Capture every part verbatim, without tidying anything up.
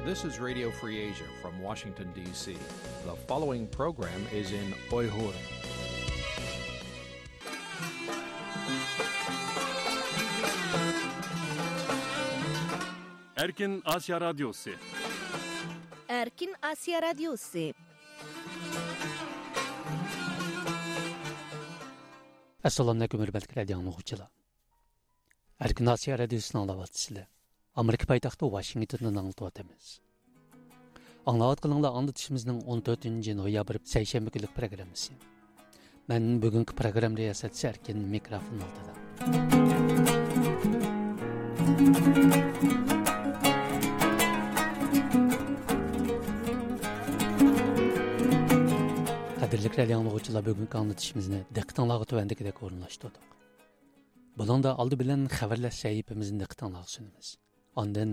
This is Radio Free Asia from Washington, D C. The following program is in Uyghur. Erkin Asya Radyosu. Erkin Asya Radyosu. Assalomu alaykum, hurmatli radio anglovchilar. Erkin Asiya Radiosini anglayotgansizlar. Amerika poytaxti Washingtondan anglatyapmiz. Anglayotganinglar anglatishimizning o'n to'rtinchi noyabr seshanba kunlik programmasi. Men bugungi programma riyosatchisi Erkin, mikrofon oldida. Qadrli radio anglovchilar, bugungi anglatishimizni diqqatinglarga tuvandikidek o'rinlashtirdik. بۇنىڭدا ئالدى بىلەن خەۋەرلەر سەھىپىمىزنى دىققىتىڭلارغا سۇنىمىز. ئاندىن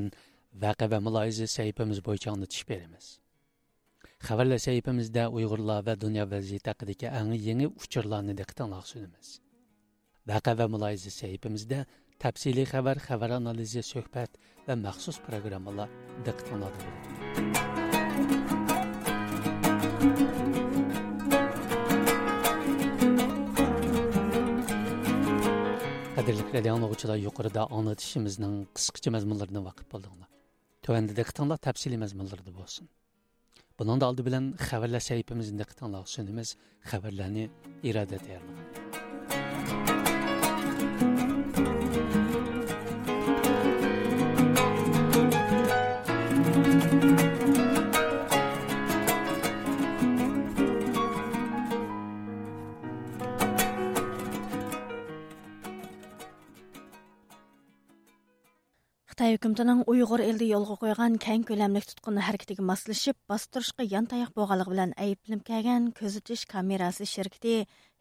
ۋەقە ۋە مۇلاھىزە سەھىپىمىز بويىچە ئاڭلىتىش بېرىمىز. خەۋەرلەر سەھىپىمىزدە ئۇيغۇرلار ۋە دۇنيا ۋەزىيىتى ھەققىدىكى ئەڭ يېڭى ئۇچۇرلارنى دىققىتىڭلارغا سۇنىمىز. ۋەقە ۋە مۇلاھىزە سەھىپىمىزدە تەپسىلىي خەۋەر، خەۋەر ئانالىزى، سۆھبەت ۋە مەخسۇس پروگراممىلار دىققىتىڭلاردا بولىدۇ. قەدىرلىك رادىئو ئاڭلىغۇچىلار، يۇقىرىدا ئاڭلىتىشىمىزنىڭ قىسقىچە مەزمۇنلىرىدىن ۋاقىپ بولدۇڭلار. تۆۋەندە دىققىتىڭلار تەپسىلىي مەزمۇنلىرىدا بولسۇن. بۇنىڭدا ئالدى بىلەن خەۋەرلەر سەھىپىمىزنى دىققىتىڭلارغا سۇنىمىز. خەۋەرلەرنى ئىرادە تەييارلىغان. خىتاي ھۆكۈمىتىنىڭ ئۇيغۇر ئېلىدە يولغا قويغان كەڭ كۆلەملىك تۇتقۇن ھەرىكىتىگە ماسلىشىپ، باستۇرۇشقا يانتاياق بولغانلىقى بىلەن ئەيىبلىنىپ كەلگەن كۆزىتىش كامېراسى شىركىتى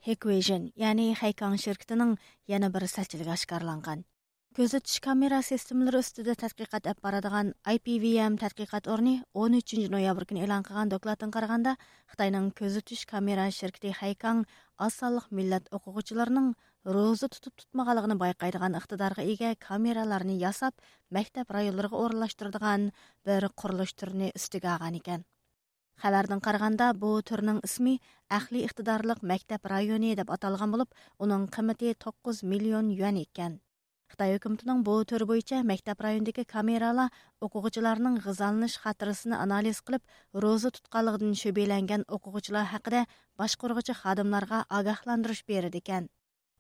ھىكۋىژن، يەنى خەيكاڭ شىركىتىنىڭ يەنە بىر سەتچىلىكى ئاشكارىلانغان. كۆزىتىش كامېرا سىستېمىلىرى ئۈستىدە تەتقىقات ئېلىپ بارىدىغان ئاي پى ۋى ئېم تەتقىقات ئورنى ئون ئۈچىنچى نويابىر كۈنى ئېلان قىلغان دوكلاتتىن قارىغاندا، خىتاينىڭ كۆزىتىش كامېرا شىركىتى خەيكاڭ ئاز سانلىق مىللەت ئوقۇغۇچىلىرىنىڭ روزا تۇتۇپ تۇتمىغانلىقىنى بايقايدىغان ئىقتىدارغا ئىگە كامېرالارنى ياساپ، مەكتەپ رايونلىرىغا ئورۇنلاشتۇرىدىغان بىر قۇرۇلۇش تۈرىنى ئۈستىگە ئالغان ئىكەن. خەۋەردىن قارىغاندا، بۇ تۈرنىڭ ئىسمى ئەقلىي ئىقتىدارلىق مەكتەپ رايونى دەپ ئاتالغان بولۇپ، ئۇنىڭ قىممىتى توققۇز مىليون يۈەن ئىكەن. خىتاي ھۆكۈمىتىنىڭ بۇ تۈر بويىچە مەكتەپ رايونىدىكى كامېرالار ئوقۇغۇچىلارنىڭ غىزالىنىش خاتىرىسىنى ئانالىز قىلىپ، روزا تۇتقانلىقىدىن شۈبھىلەنگەن ئوقۇغۇچىلار ھەققىدە باشقۇرغۇچى خادىملارغا ئاگاھلاندۇرۇش بېرىدىكەن.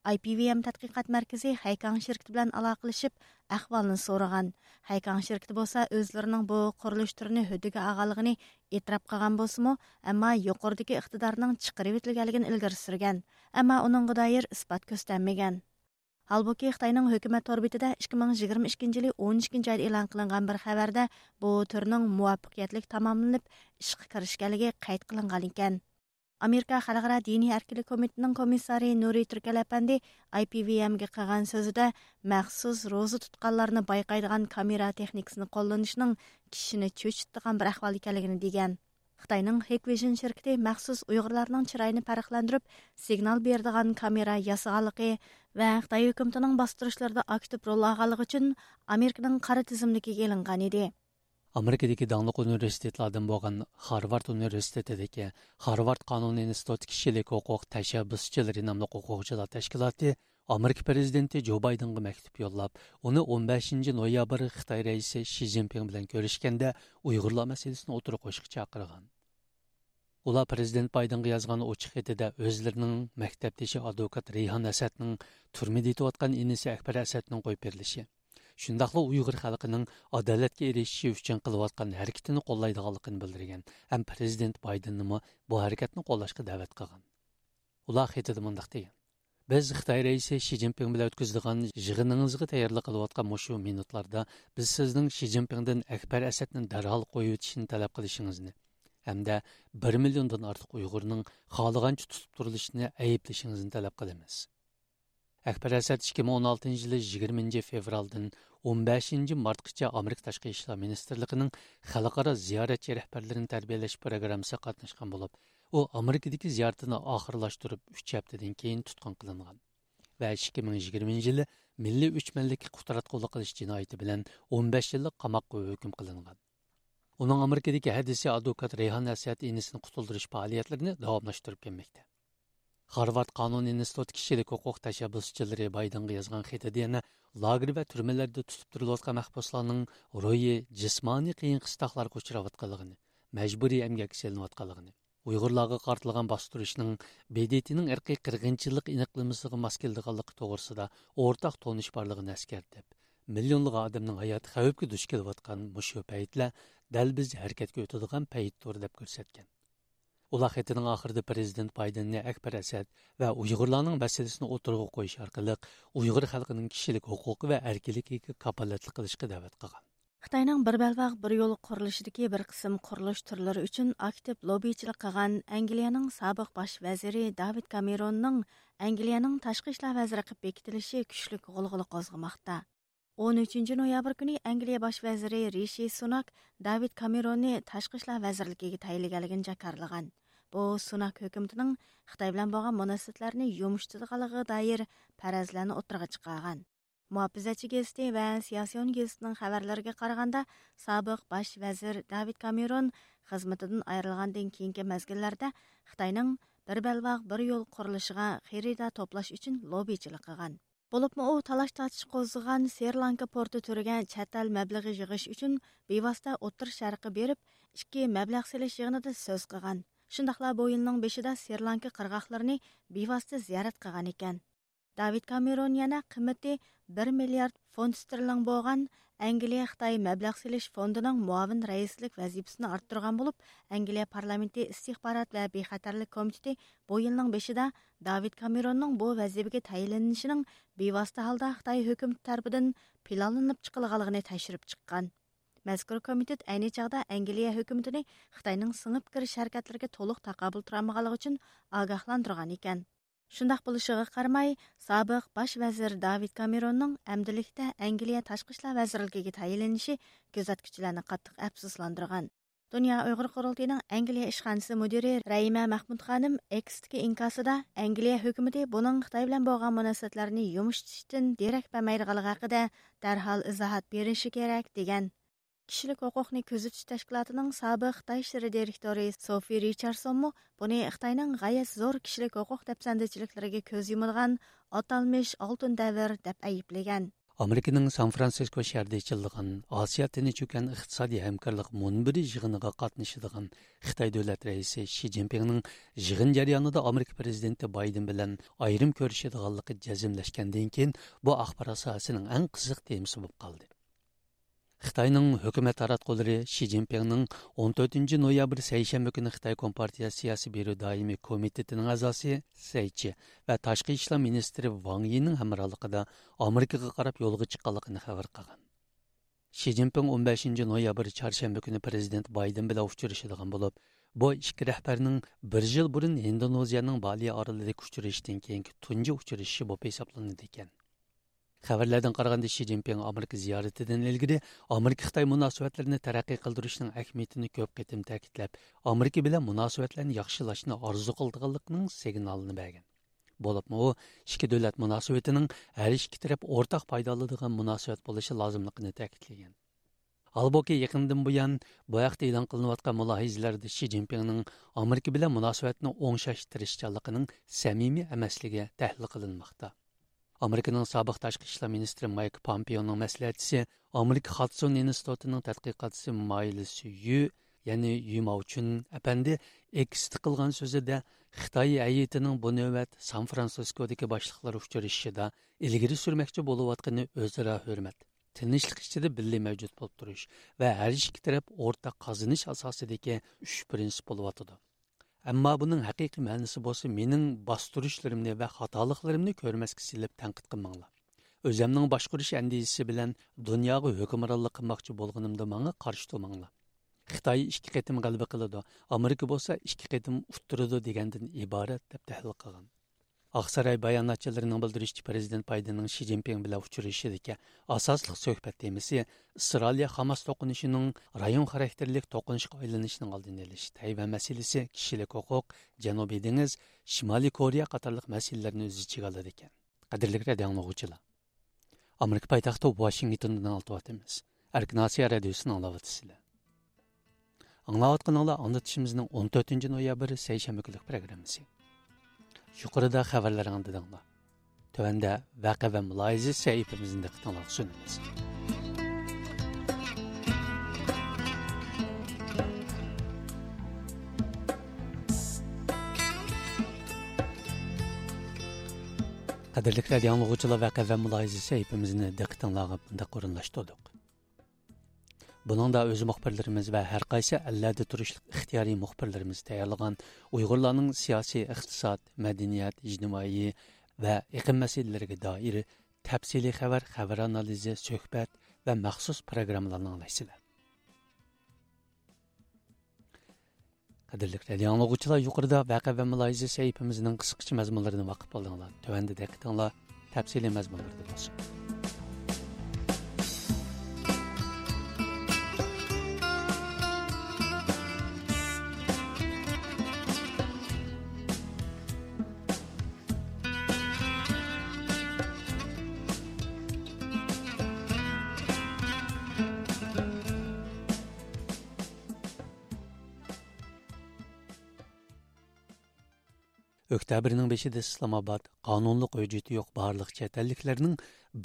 ئاي پى ۋى ئېم تەتقىقات مەركىزى خەيكاڭ شىركىتى بىلەن ئالاقىلىشىپ، ئەھۋالنى سورىغان. خەيكاڭ شىركىتى بولسا ئۆزلىرىنىڭ بۇ قۇرۇلۇش تۈرىنى ھۆددىگە ئالغانلىقىنى ئېتىراپ قىلغان بولسىمۇ، ئەمما يۇقىرىدىكى ئىقتىدارنىڭ چىقىرىۋېتىلگەنلىكىنى ئىلگىرى سۈرگەن، ئەمما ئۇنىڭغا دائىر ئىسپات كۆرسەتمىگەن. ھالبۇكى، خىتاينىڭ ھۆكۈمەت تور بېتىدە ئىككى مىڭ يىگىرمە ئىككىنچى يىلى ئون ئىككىنچى ئايدا ئېلان قىلىنغان بىر خەۋەردە بۇ تۈرنىڭ مۇۋەپپەقىيەتلىك تاماملىنىپ، ئىشقا كىرىشكەنلىكى قەيت قىلىنغان ئىكەن. ئامېرىكا خەلقئارا دىنىي ئەركىنلىك كومىتېتىنىڭ كومىسسارى نۇرى تۈركەل ئەپەندى ئاي پى ۋى ئېمگە قىلغان سۆزىدە، مەخسۇس روزا تۇتقانلارنى بايقايدىغان كامېرا تېخنىكىسىنى قوللىنىشنىڭ كىشىنى چۆچۈتىدىغان بىر ئەھۋال ئىكەنلىكىنى دېگەن. خىتاينىڭ ھىكۋىژن شىركىتى مەخسۇس ئۇيغۇرلارنىڭ چىرايىنى پەرقلەندۈرۈپ، سىگنال بېرىدىغان كامېرا ياسىغانلىقى ۋە خىتاي ھۆكۈمىتىنىڭ باستۇرۇشلىرىدا ئاكتىپ رول ئالغانلىقى ئۈچۈن ئامېرىكىنىڭ قارا تىزىملىكىگە ئېلىنغان ئىدى. ئامېرىكىدىكى داڭلىق ئۇنىۋېرسىتېتلاردىن بولغان خارۋارد ئۇنىۋېرسىتېتىدىكى خارۋارد قانۇن ئىنستىتۇتى كىشىلىك ھوقۇق تەشەببۇسچىلىرى ناملىق ھوقۇقچىلار تەشكىلاتى ئامېرىكا پىرېزىدېنتى جو بايدېنغا مەكتۇپ يوللاپ، ئۇنى ئون بەشىنچى نويابىر خىتاي رەئىسى شى جىنپىڭ بىلەن كۆرۈشكەندە ئۇيغۇرلار مەسىلىسىنى ئوتتۇرىغا قويۇشقا چاقىرغان. ئۇلار پىرېزىدېنت بايدېنغا يازغان ئوچۇق خېتىدە ئۆزلىرىنىڭ مەكتەپدىشى ئادۋوكات رەيھان ئەسەدنىڭ تۈرمىدە يېتىۋاتقان ئىنىسى ئەكبەر ئەسەدنىڭ قويۇپ بېرىلىشى، شۇنداقلا ئۇيغۇر خەلقىنىڭ ئادالەتكە ئېرىشىشى ئۈچۈن قىلىۋاتقان ھەرىكىتىنى قوللايدىغانلىقىنى بىلدۈرگەن ھەم پىرېزىدېنت بايدېننىمۇ بۇ ھەرىكەتنى قوللاشقا دەۋەت قىلغان. ئۇلار خېتىدە مۇنداق دېگەن: «بىز خىتاي رەئىسى شى جىنپىڭ بىلەن ئۆتكۈزىدىغان يىغىنىڭىزغا تەييارلىق قىلىۋاتقان مۇشۇ مىنۇتلاردا بىز سىزنىڭ شى جىنپىڭدىن ئەكبەر ئەسەدنى دەرھال قويۇۋېتىشنى تەلەپ قىلىشىڭىزنى ھەمدە بىر مىليوندىن ئارتۇق ئۇيغۇرنىڭ خالىغانچە تۇتۇپ تۇرۇلۇشىنى ئەيىبلىشىڭىزنى تەلەپ قىلىمىز.» ئەكبەر ئەسەد ئىككى مىڭ ئون ئالتىنچى يىلى يىگىرمىنچى فېۋرالدىن ئون بەشىنچى مارتقىچە ئامېرىكا تاشقى ئىشلار مىنىستىرلىقىنىڭ خەلقئارا زىيارەتچى رەھبەرلىرىنى تەربىيەلەش پروگراممىسىغا قاتناشقان بولۇپ، ئۇ ئامېرىكىدىكى زىيارىتىنى ئاخىرلاشتۇرۇپ، ئۈچ ھەپتىدىن كېيىن تۇتقۇن قىلىنغان ۋە ئىككى مىڭ يىگىرمىنچى يىلى مىللىي ئۆچمەنلىككە قۇتراتقۇلۇق قىلىش جىنايىتى بىلەن ئون بەش يىللىق قاماققا ھۆكۈم قىلىنغان. ئۇنىڭ ئامېرىكىدىكى ھەدىسى ئادۋوكات رەيھان ئەسەد ئىنىسىنى قۇتۇلدۇرۇش پائالىيەتلىرىنى داۋاملاشتۇرۇپ كەلمەكتە. خارۋارد قانۇن ئىنستىتۇتى كىشىلىك ھوقۇق تەشەببۇسچىلىرى بايدېنغا يازغان خېتىدە يەنە لاگېر ۋە تۈرمىلەردە تۇتۇپ تۇرۇلۇۋاتقان مەھبۇسلارنىڭ روھىي، جىسمانىي قىيىن قىستاقلارغا ئۇچراۋاتقانلىقىنى، مەجبۇرىي ئەمگەككە سېلىنىۋاتقانلىقىنى، ئۇيغۇرلارغا قارىتىلغان باستۇرۇشنىڭ ب د ت نىڭ ئىرقىي قىرغىنچىلىق ئېنىقلىمىسىغا ماس كېلىدىغانلىقى توغرىسىدا ئورتاق تونۇش بارلىقىنى ئەسكەرتىپ، مىليونلىغان ئادەمنىڭ ھاياتى خەۋپكە دۇچ كېلىۋاتقان مۇشۇ پەيتلەر دەل بىز ھەرىكەتكە ئۆتىدىغان پەيتتۇر، دەپ كۆرسەتكەن. ئۇلار خېتىنىڭ ئاخىرىدا پرېزىدېنت بايدېننى ئەكبەر ئەسەد ۋە ئۇيغۇرلارنىڭ مەسىلىسىنى ئوتتۇرىغا قويۇش ئارقىلىق ئۇيغۇر خەلقىنىڭ كىشىلىك ھوقۇقى ۋە ئەركىنلىكىگە كاپالەتلىك قىلىشقا دەۋەت قىلغان. خىتاينىڭ بىر بەلباغ، بىر يول قۇرۇلۇشىدىكى بىر قىسىم قۇرۇلۇش تۈرلىرى ئۈچۈن ئاكتىپ لوببىچىلىك قىلغان ئەنگلىيەنىڭ سابىق باش ۋەزىرى داۋىد كامېروننىڭ ئەنگلىيەنىڭ تاشقى ئىشلار ۋەزىرى قىلىپ بېكىتىلىشى كۈچلۈك غۇلغۇلا قوزغىماقتا. ئون ئۈچىنچى نويابىر كۈنى ئەنگلىيە باش ۋەزىرى رىشى سۇناك داۋىد كامېروننى تاشقى ئىشلار ۋەزىرلىكىگە تەيىنلىگەنلىكىنى جاكارلىغان. بۇ سۇناك ھۆكۈمىتىنىڭ خىتاي بىلەن بولغان مۇناسىۋەتلەرنى يۇمشىتىدىغانلىقىغا دائىر پەرەزلەرنى ئوتتۇرىغا چىقارغان. مۇھاپىزەتچى گېزىتى ۋە سىياسىيون گېزىتىنىڭ خەۋەرلىرىگە قارىغاندا، سابىق باش ۋەزىر داۋىد كامېرون خىزمىتىدىن ئايرىلغاندىن كېيىنكى مەزگىللەردە خىتاينىڭ بىر بەلباغ، بىر يول قۇرۇلۇشىغا خېرىدار توپلاش ئۈچۈن لوببىچىلىك قىلغان. بولۇپمۇ ئۇ تالاش-تارتىش قوزغىغان سرى لانكا پورتى تۈرىگە چەت ئەل مەبلىغى يىغىش ئۈچۈن بىۋاسىتە ئوتتۇرا شەرققە بېرىپ، ئىككى مەبلەغ سېلىش يىغىنىدا سۆز قىلغان. شۇنداقلا بۇ يىلنىڭ بېشىدا سرى لانكا قىرغاقلىرىنى بىۋاسىتە زىيارەت قىلغان ئىكەن. داۋىد كامېرون يەنە قىممىتى بىر مىليارد فونت ستېرلىڭ بولغان ئەنگلىيە خىتاي مەبلەغ سېلىش فوندىنىڭ مۇئاۋىن رەئىسلىك ۋەزىپىسىنى ئارتتۇرغان بولۇپ، ئەنگلىيە پارلامېنتى ئىستىخبارات ۋە بىخەتەرلىك كومىتېتى بۇ يىلنىڭ بېشىدا داۋىد كامېروننىڭ بۇ ۋەزىپىگە تەيىنلىنىشىنىڭ بىۋاسىتە ھالدا خىتاي ھۆكۈمىتى تەرىپىدىن پىلانلىنىپ چىقىلغانلىقىنى تەكشۈرۈپ چىققان. مەزكۇر كومىتېت ئەينى چاغدا ئەنگلىيە ھۆكۈمىتىنى خىتاينىڭ سىڭىپ كىرىش ھەرىكەتلىرىگە تولۇق تاقابىل تۇرالمىغانلىقى ئۈچۈن ئاگاھلاندۇرغان ئىكەن. شۇنداق بولۇشىغا قارىماي، سابىق باش ۋەزىر داۋىد كامېروننىڭ ئەمدىلىكتە ئەنگلىيە تاشقى ئىشلار ۋەزىرلىكىگە تەيىنلىنىشى كۆزەتكۈچىلەرنى قاتتىق ئەپسۇسلاندۇرغان. دۇنيا ئۇيغۇر قۇرۇلتىيىنىڭ ئەنگلىيە ئىشخانىسى مۇدىرى رەھىمە مەخمۇت خانىم ئېكستىكى ئىنكاسىدا، ئەنگلىيە ھۆكۈمىتى بۇنىڭ خىتاي بىلەن بولغان مۇناسىۋەتلەرنى يۇمشىتىشتىن دېرەك بەرمەيدىغانلىقى ھەققىدە دەرھال ئىزاھات بېرىشى كېرەك، دېگەن. كىشىلىك ھوقۇقنى كۆزىتىش تەشكىلاتىنىڭ سابىق خىتاي ئىشلىرى دىرېكتورى سوفى رىچاردسونمۇ بۇنى خىتاينىڭ غايەت زور كىشىلىك ھوقۇق دەپسەندىچىلىكلىرىگە كۆز يۇمىدىغان ئاتالمىش ئالتۇن دەۋر دەپ ئەيىبلىگەن. ئامېرىكىنىڭ سان فرانسىسكو شەھىرىدە ئېچىلىدىغان ئاسىيا تىنچ ئوكيان ئىقتىسادىي ھەمكارلىق مۇنبىرى يىغىنىغا قاتنىشىدىغان خىتاي دۆلەت رەئىسى شى جىنپىڭنىڭ يىغىن جەريانىدا ئامېرىكا پىرېزىدېنتى بايدېن بىلەن ئايرىم كۆرۈشىدىغانلىقى جەزملەشكەندىن كېيىن، بۇ ئاخبارات ساھەسىنىڭ ئەڭ قىزىق تېمىسى بولۇپ قالدى. خىتاينىڭ ھۆكۈمەت تاراتقۇلىرى شى جىنپىڭنىڭ ئون تۆتىنچى نويابىر سەيشەنبە كۈنى خىتاي كومپارتىيە سىياسىي بيۇرو دائىمىي كومىتېتىنىڭ ئەزاسى سەي چى ۋە تاشقى ئىشلار مىنىستىرى ۋاڭ يىنىڭ ھەمراھلىقىدا ئامېرىكىغا قاراپ يولغا چىققانلىقىنى خەۋەر قىلغان. شى جىنپىڭ ئون بەشىنچى نويابىر چارشەنبە كۈنى پىرېزىدېنت بايدېن بىلەن ئۇچرىشىدىغان بولۇپ، بۇ ئىككى رەھبەرنىڭ بىر يىل بۇرۇن ھىندونېزىيەنىڭ بالى ئارىلىدىكى ئۇچرىشىشتىن كېيىنكى تۇنجى ئۇچرىشىشى بولۇپ ھېسابلىنىدىكەن. خەۋەرلەردىن قارىغاندا، شى جىنپىڭ ئامېرىكا زىيارىتىدىن ئىلگىرى ئامېرىكا خىتاي مۇناسىۋەتلىرىنى تەرەققىي قىلدۇرۇشنىڭ ئەھمىيىتىنى كۆپ قېتىم تەكىتلەپ، ئامېرىكا بىلەن مۇناسىۋەتلەرنى ياخشىلاشنى ئارزۇ قىلىدىغانلىقىنىڭ سىگنالىنى بەرگەن. بولۇپمۇ ئۇ ئىككى دۆلەت مۇناسىۋىتىنىڭ ھەر ئىككى تەرەپ ئورتاق پايدا ئالىدىغان مۇناسىۋەت بولۇشى لازىملىقىنى تەكىتلىگەن. ھالبۇكى، يېقىندىن بۇيان بۇ ھەقتە ئېلان قىلىنىۋاتقان مۇلاھىزىلەردە شى جىنپىڭنىڭ ئامېرىكا بىلەن مۇناسىۋەتنى ئوڭشاش تىرىشچانلىقىنىڭ سەمىمىي ئەمەسلىكى تەھلىل قىلىنماقتا. ئامېرىكىنىڭ سابىق تاشقى ئىشلار مىنىستىرى مايك پامپېئونىڭ مەسلىھەتچىسى، ئامېرىكا خادسون ئىنستىتۇتىنىڭ تەتقىقاتچىسى مايلىس يۈ، يەنى يۈ ماۋچۈن ئەپەندى ئېكستا قىلغان سۆزىدە، خىتاي ھەيئىتىنىڭ بۇ نۆۋەت سان فرانسىسكودىكى باشلىقلار ئۇچرىشىشىدا ئىلگىرى سۈرمەكچى بولۇۋاتقىنى ئۆزئارا ھۆرمەت، تىنچلىق ئىچىدە بىللە مەۋجۇت بولۇپ تۇرۇش ۋە ھەر ئىككى تەرەپ ئورتاق قازىنىش ئاساسىدىكى ئۈچ پىرىنسىپ بولۇۋاتىدۇ. ئەمما بۇنىڭ ھەقىقىي مەنىسى بولسا، مېنىڭ باستۇرۇشلىرىمنى ۋە خاتالىقلىرىمنى كۆرمەسكە سېلىپ تەنقىد قىلماڭلار. ئۆزەمنىڭ باشقۇرۇش ئەندىزىسى بىلەن دۇنياغا ھۆكۈمرانلىق قىلماقچى بولغىنىمدا ماڭا قارشى تۇرماڭلار. خىتاي ئىككى قېتىم غەلىبە قىلىدۇ، ئامېرىكا بولسا ئىككى قېتىم ئۇتتۇرىدۇ دېگەندىن ئىبارەت، دەپ تەھلىل قىلغان. ئاقساراي باياناتچىلىرىنىڭ بىلدۈرۈشىچە، پىرېزىدېنت بايدېننىڭ شى جىنپىڭ بىلەن ئۇچرىشىشىدىكى ئاساسلىق سۆھبەت تېمىسى ئىسرائىلىيە خاماس توقۇنۇشىنىڭ رايون خاراكتېرلىك توقۇنۇشقا ئايلىنىشىنىڭ ئالدىنى ئېلىش، تەيۋەن مەسىلىسى، كىشىلىك ھوقۇق، جەنۇبىي دېڭىز، شىمالىي كورېيە قاتارلىق مەسىلىلەرنى ئۆز ئىچىگە ئالىدىكەن. قەدىرلىك رادىئو ئاڭلىغۇچىلار، ئامېرىكا پايتەختى ۋاشىنگتوندىن ئاڭلىتىۋاتىمىز. ئەركىن ئاسىيا رادىيوسىنى ئاڭلاۋاتىسىلەر. ئاڭلاۋاتقىنىڭلار ئاڭلىتىشىمىزنىڭ ئون تۆتىنچى نويابىر سەيشەنبە كۈنلۈك پروگراممىسى. يۇقىرىدا خەۋەرلەرنى ئاڭلىدىڭلار. تۆۋەندە ۋەقە ۋە مۇلاھىزە سەھىپىمىزنى دىققىتىڭلارغا سۇنىمىز. قەدىرلىك رادىئو ئاڭلىغۇچىلار، ۋەقە ۋە مۇلاھىزە سەھىپىمىزنى دىققىتىڭلارغا مۇنداق ئورۇنلاشتۇردۇق. بۇنىڭدا ئۆز مۇخبىرلىرىمىز ۋە ھەر قايسى ئەللەردە تۇرۇشلۇق ئىختىيارىي مۇخبىرلىرىمىز تەييارلىغان ئۇيغۇرلارنىڭ سىياسىي، ئىقتىساد، مەدەنىيەت، ئىجتىمائىي ۋە ئېقىم مەسىلىلىرىگە دائىر تەپسىلىي خەۋەر، خەۋەر ئانالىزى، سۆھبەت ۋە مەخسۇس پروگراممىلارنى ئاڭلايسىلەر. قەدىرلىك رادىئو ئاڭلىغۇچىلار، يۇقىرىدا ۋەقە ۋە مۇلاھىزە سەھىپىمىزنىڭ قىسقىچە مەزمۇنلىرىنى باقىپ بولدۇڭلار. تۆۋەندە دىققىتىڭلار تەپسىلىي مەزمۇنلىرىدا بولسۇن. ئۆكتەبىرنىڭ بېشىدا ئىسلامئاباد قانۇنلۇق ھۆججىتى يوق بارلىق چەت ئەللىكلەرنىڭ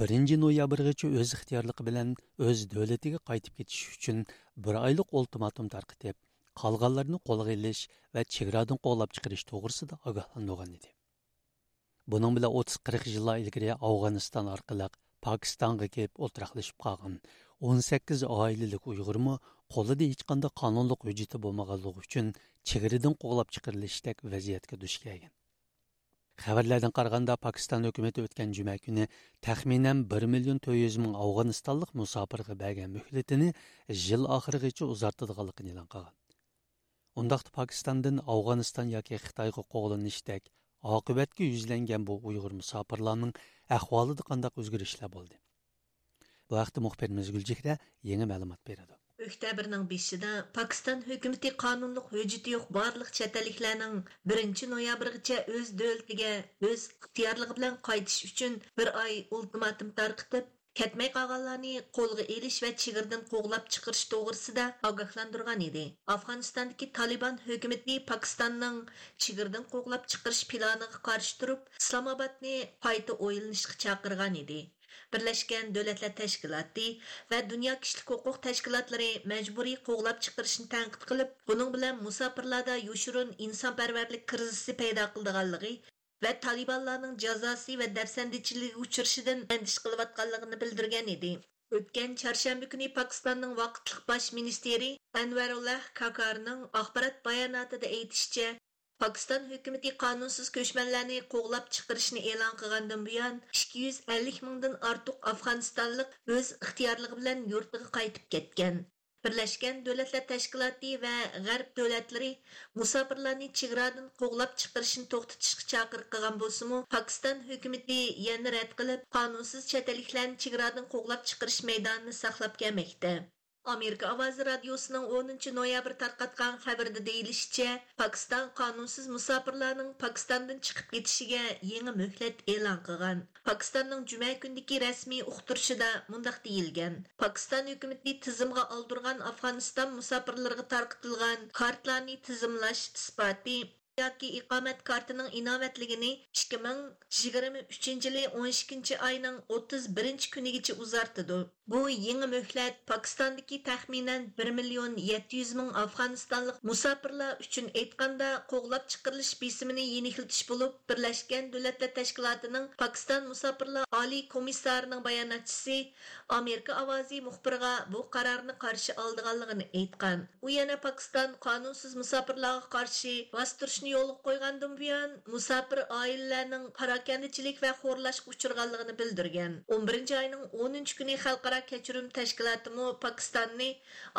بىرىنچى نويابىرغىچە ئۆز ئىختىيارلىقى بىلەن ئۆز دۆلىتىگە قايتىپ كېتىشى ئۈچۈن بىر ئايلىق ئۇلتىماتوم تارقىتىپ، قالغانلارنى قولغا ئېلىش ۋە چېگرادىن قوغلاپ چىقىرىش توغرىسىدا ئاگاھلاندۇرغان ئىدى. بۇنىڭ بىلەن ئوتتۇز قىرىق يىللار ئىلگىرى ئافغانىستان ئارقىلىق پاكىستانغا كېلىپ ئولتۇراقلىشىپ قالغان ئون سەككىز ئائىلىلىك ئۇيغۇرمۇ قولىدا ھېچقانداق قانۇنلۇق ھۆججىتى بولمىغانلىقى ئۈچۈن چېگرىدىن قوغلاپ چىقىرىلىشتەك ۋەزىيەتكە دۇچ كەلگەن. خەۋەرلەردىن قارىغاندا، پاكىستان ھۆكۈمىتى ئۆتكەن جۈمە كۈنى تەخمىنەن بىر مىليون تۆت يۈز مىڭ ئافغانىستانلىق مۇساپىرغا بەرگەن مۆھلىتىنى يىل ئاخىرىغىچە ئۇزارتىدىغانلىقىنى ئېلان قىلغان. ئۇنداقتا پاكىستاندىن ئافغانىستان ياكى خىتايغا قوغلىنىشتەك ئاقىۋەتكە يۈزلەنگەن بۇ ئۇيغۇر مۇساپىرلارنىڭ ئەھۋالىدا قانداق ئۆزگىرىشلەر بولدى؟ بۇ ھەقتە مۇخبىرىمىز گۈلچېھرە يېڭى مەلۇمات بېرىدۇ. ئۆكتەبىرنىڭ بېشىدا پاكىستان ھۆكۈمىتى قانۇنلۇق ھۆججىتى يوق بارلىق چەت ئەللىكلەرنىڭ بىرىنچى نويابىرغىچە ئۆز دۆلىتىگە ئۆز ئىختىيارلىقى بىلەن قايتىش ئۈچۈن بىر ئاي ئۇلتىماتوم تارقىتىپ، كەتمەي قالغانلارنى قولغا ئېلىش ۋە چېگرىدىن قوغلاپ چىقىرىش توغرىسىدا ئاگاھلاندۇرغان ئىدى. ئافغانىستاندىكى تالىبان ھۆكۈمىتى پاكىستاننىڭ چېگرىدىن قوغلاپ چىقىرىش پىلانىغا قارشى تۇرۇپ، ئىسلامئابادنى قايتا ئويلىنىشقا چاقىرغان ئىدى. بىرلەشكەن دۆلەتلەر تەشكىلاتى ۋە دۇنيا كىشىلىك ھوقۇق تەشكىلاتلىرى مەجبۇرىي قوغلاپ چىقىرىشنى تەنقىد قىلىپ، بۇنىڭ بىلەن مۇساپىرلاردا يوشۇرۇن ئىنسانپەرۋەرلىك كىرىزىسى پەيدا قىلىدىغانلىقى ۋە تالىبانلارنىڭ جازاسى ۋە دەپسەندىچىلىككە ئۇچرىشىدىن ئەندىشە قىلىۋاتقانلىقىنى بىلدۈرگەن ئىدى. ئۆتكەن چارشەنبە كۈنى پاكىستاننىڭ ۋاقىتلىق باش مىنىستىرى ئەنۋەرۇللا كاكارنىڭ ئاخبارات باياناتىدا ئېيتىشىچە، پاكىستان ھۆكۈمىتى قانۇنسىز كۆچمەنلەرنى قوغلاپ چىقىرىشنى ئېلان قىلغاندىن بۇيان، ئىككى يۈز ئەللىك مىڭدىن ئارتۇق ئافغانىستانلىق ئۆز ئىختىيارلىقى بىلەن يۇرتىغا قايتىپ كەتكەن. بىرلەشكەن دۆلەتلەر تەشكىلاتى ۋە غەرب دۆلەتلىرى مۇساپىرلارنى چېگرادىن قوغلاپ چىقىرىشنى توختىتىشقا چاقىرىق قىلغان بولسىمۇ، پاكىستان ھۆكۈمىتى يەنە رەت قىلىپ، قانۇنسىز چەت ئەللىكلەرنى چېگرادىن قوغلاپ چىقىرىش مەيدانىنى ساقلاپ كەلمەكتە. ئامېرىكا ئاۋازى رادىيوسىنىڭ ئونىنچى نويابىر تارقاتقان خەۋىرىدە دېيىلىشىچە، پاكىستان قانۇنسىز مۇساپىرلارنىڭ پاكىستاندىن چىقىپ كېتىشىگە يېڭى مۆھلەت ئېلان قىلغان. پاكىستاننىڭ جۈمە كۈنىدىكى رەسمىي ئۇقتۇرۇشىدا مۇنداق دېيىلگەن: پاكىستان ھۆكۈمىتى تىزىمغا ئالدۇرغان ئافغانىستان مۇساپىرلىرىغا تارقىتىلغان كارتىلارنى تىزىملاش ئىسپاتى ياكى ئىقامەت كارتىنىڭ ئىناۋەتلىكىنى ئىككى مىڭ يىگىرمە ئۈچىنچى يىلى ئون ئىككىنچى ئاينىڭ ئوتتۇز بىرىنچى كۈنىگىچە ئۇزارتىدۇ. بۇ يېڭى مۆھلەت پاكىستاندىكى تەخمىنەن بىر مىليون يەتتە يۈز مىڭ ئافغانىستانلىق مۇساپىرلار ئۈچۈن ئېيتقاندا، قوغلاپ چىقىرىلىش بېسىمىنى يېنىكلىتىش بولۇپ، بىرلەشكەن دۆلەتلەر تەشكىلاتىنىڭ پاكىستان مۇساپىرلار ئالىي كومىسسارىنىڭ باياناتچىسى ئامېرىكا ئاۋازى مۇخبىرىغا بۇ قارارنى قارشى ئالىدىغانلىقىنى ئېيتقان. ئۇ يەنە پاكىستان قانۇنسىز مۇساپىرلارغا قارشى باستۇرۇشنى يولغا قويغاندىن بۇيان، مۇساپىر ئائىلىلەرنىڭ پاراكەندىچىلىك ۋە خورلاشقا ئۇچرىغانلىقىنى بىلدۈرگەن. ئون بىرىنچى ئاينىڭ ئونىنچى كۈنى خەلقئارا كەچۈرۈم تەشكىلاتىمۇ پاكىستاننى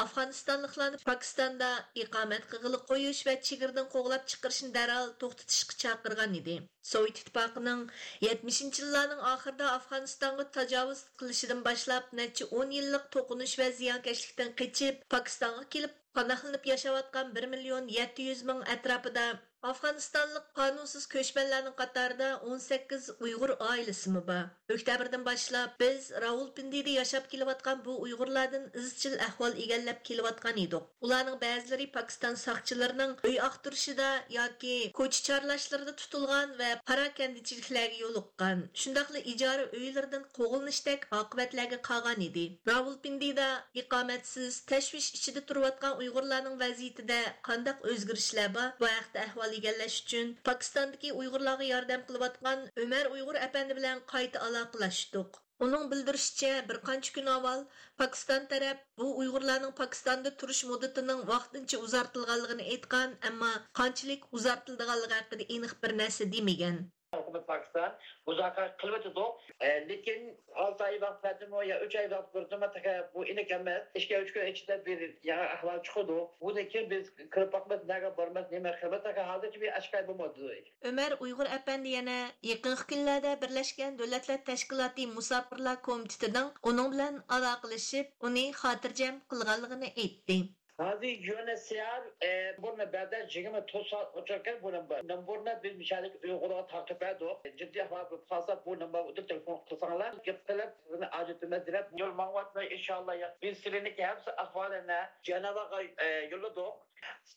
ئافغانىستانلىقلارنى پاكىستاندا ئىقامەت قىلغىلى قويۇش ۋە چېگرىدىن قوغلاپ چىقىرىشنى دەرھال توختىتىشقا چاقىرغان ئىدى. سوۋېت ئىتتىپاقىنىڭ يەتمىشىنچى يىللارنىڭ ئاخىرىدا ئافغانىستانغا تاجاۋۇز قىلىشىدىن باشلاپ، نەچچە ئون يىللىق توقۇنۇش ۋە زىيانكەشلىكتىن قېچىپ، پاكىستانغا كېلىپ، پاناھلىنىپ ياشاۋاتقان بىر مىليون يەتتە يۈز مىڭ ئەتراپىدا ئافغانىستانلىق قانۇنسىز كۆچمەنلەرنىڭ قاتارىدا ئون سەككىز ئۇيغۇر ئائىلىسىمۇ بار. ئۆكتەبىردىن باشلاپ بىز راۋۇلپىندىدە ياشاپ كېلىۋاتقان بۇ ئۇيغۇرلاردىن ئىزچىل ئەھۋال ئىگىلەپ كېلىۋاتقان ئىدۇق. ئۇلارنىڭ بەزىلىرى پاكىستان ساقچىلىرىنىڭ ئۆي ئاختۇرۇشىدا ياكى كوچا چارلاشلىرىدا تۇتۇلغان ۋە پاراكەندىچىلىكلەرگە يولۇققان، شۇنداقلا ئىجارە ئۆيلىرىدىن قوغلىنىشتەك ئاقىۋەتلەرگە قالغان ئىدى. راۋۇلپىندىدا ئىقامەتسىز، تەشۋىش ئىچىدە تۇرۇۋاتقان ئۇيغۇرلارنىڭ ۋەزىيىتىدە قانداق ئۆزگىرىشلەر بار؟ بۇ ھەقتە ئەھۋال ئىگىلەش ئۈچۈن پاكىستاندىكى ئۇيغۇرلارغا ياردەم قىلىۋاتقان ئۆمەر ئۇيغۇر ئەپەندى بىلەن قايتا ئالاقىلەشتۇق. ئۇنىڭ بىلدۈرۈشىچە، بىر قانچە كۈن ئاۋۋال پاكىستان تەرەپ بۇ ئۇيغۇرلارنىڭ پاكىستاندا تۇرۇش مۇددىتىنىڭ ۋاقتىنچە ئۇزارتىلغانلىقىنى ئېيتقان، ئەمما قانچىلىك ئۇزارتىلىدىغانلىقى ھەققىدە ئېنىق بىر نەرسە دېمىگەن. ھۆكۈمەت پاكىستان مۇزاكىرە قىلىۋاتىدۇ. ئە، لېكىن ئالتە ئاي ۋاقىت بەردىمۇ يا ئۈچ ئاي ۋاقىت بەردىمۇ، تېخى بۇ ئېنىق ئەمەس. ئىككى ئۈچ كۈن ئىچىدە بىر يېڭى ئەھۋال چىقىدۇ. بۇدىن كېيىن بىز كىرىپ باقىمىز، نەگە بارىمىز، نېمە قىلىمىز، تېخى ھازىرچە بىر ئاشكارا بولمىدى. ئۆمەر ئۇيغۇر ئەپەندى يەنە يېقىنقى كۈنلەردە بىرلەشكەن دۆلەتلەر تەشكىلاتى مۇساپىرلار كومىتېتىنىڭ ئۇنىڭ بىلەن ئالاقىلىشىپ، ئۇنى خاتىرجەم قىلغانلىقىنى ئېيتتى. ھازىر يۇ ئېن ئېچ سى ئار، ئە، نومۇرنى بەردى، يىگىرمە تۆت سائەت ئوچۇق ئىكەن بۇ نومۇر. نومۇرنى بىز مىشەلىك ئۇيغۇرغا تارقىتىپ بەردۇق. جىددىي ئەھۋال بولۇپ قالسا، بۇ نومۇرغا تېلېفون قىلساڭلار، گەپ قىلىپ، سىزنى ئاجرىتىمىز دەپ يول ماڭىۋاتىمىز، ئىنشاللا. بىز سىلىنىڭكى ھەممە ئەھۋالىنى جەنۋاغا، ئە، يوللىدۇق.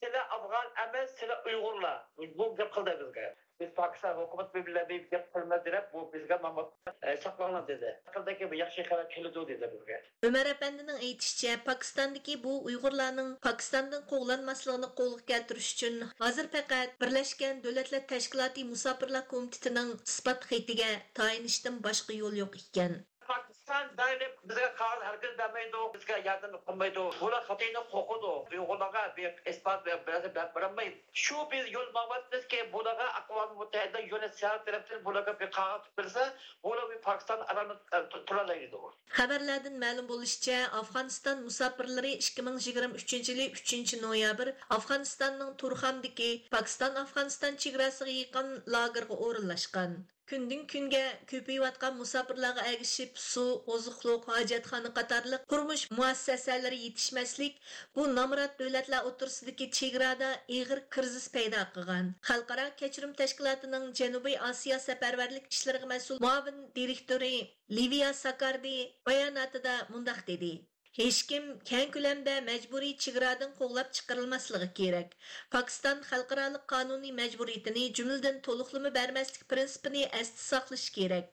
سىلەر ئافغان ئەمەس، سىلەر ئۇيغۇرلار. بۇ گەپ قىلدى بىزگە. بىز پاكىستان ھۆكۈمىتى بىلەن بىر گەپ قىلىمىز دەپ، بۇ بىزگە ماما، ئە، ساقلاڭلار دېدى. يېقىندىكى بىر ياخشى خەۋەر كېلىدۇ دېدى بىزگە. ئۆمەر ئەپەندىنىڭ ئېيتىشىچە، پاكىستاندىكى بۇ ئۇيغۇرلارنىڭ پاكىستاندىن قوغلانماسلىقىنى قولغا كەلتۈرۈش ئۈچۈن ھازىر پەقەت بىرلەشكەن دۆلەتلەر تەشكىلاتى مۇساپىرلار كومىتېتىنىڭ ئىسپات خېتىگە تايىنىشتىن باشقا يول يوق ئىكەن. پاكىستان دائىم بىزگە قەغەز ھەرگىز بەرمەيدۇ، بىزگە ياردەم قىلمايدۇ. بۇلار خىتاينى قورقىدۇ. ئۇيغۇرلارغا بىر ئىسپات بەرسە بەرمەيدۇ. شۇ بىز يول ماڭىۋاتىمىزكى، بۇلارغا ئاقۋام مۇتتەھىدە يۇ ئېن ئېچ سى ئار تەرەپتىن بۇلارغا بىر قەغەز بەرسە، بۇلار بىر پاكىستان ئارانى، ئە، تۇ-، تۇرالايدۇ. خەۋەرلەردىن مەلۇم بولۇشىچە، ئافغانىستان مۇساپىرلىرى ئىككى مىڭ يىگىرمە ئۈچىنچى يىلى ئۈچىنچى نويابىر ئافغانىستاننىڭ تۇرخاندىكى پاكىستان ئافغانىستان چېگراسىغا يېقىن لاگېرغا ئورۇنلاشقان. كۈندىن كۈنگە كۆپىيىۋاتقان مۇساپىرلارغا ئەگىشىپ، سۇ، ئوزۇقلۇق، ھاجەتخانا قاتارلىق تۇرمۇش مۇئەسسەسەلىرى يېتىشمەسلىك بۇ نامرات دۆلەتلەر ئوتتۇرىسىدىكى چېگرادا ئېغىر كىرىزىس پەيدا قىلغان. خەلقئارا كەچۈرۈم تەشكىلاتىنىڭ جەنۇبىي ئاسىيا سەپەرۋەرلىك ئىشلىرىغا مەسئۇل مۇئاۋىن دىرېكتورى لىۋىيا ساكاردى باياناتىدا مۇنداق دېدى: ھېچكىم كەڭ كۆلەمدە مەجبۇرىي چېگرادىن قوغلاپ چىقىرىلماسلىقى كېرەك. پاكىستان خەلقئارالىق قانۇنىي مەجبۇرىيىتىنى، جۈملىدىن تولۇقلىما بەرمەسلىك پىرىنسىپىنى ئەستە ساقلىشى كېرەك.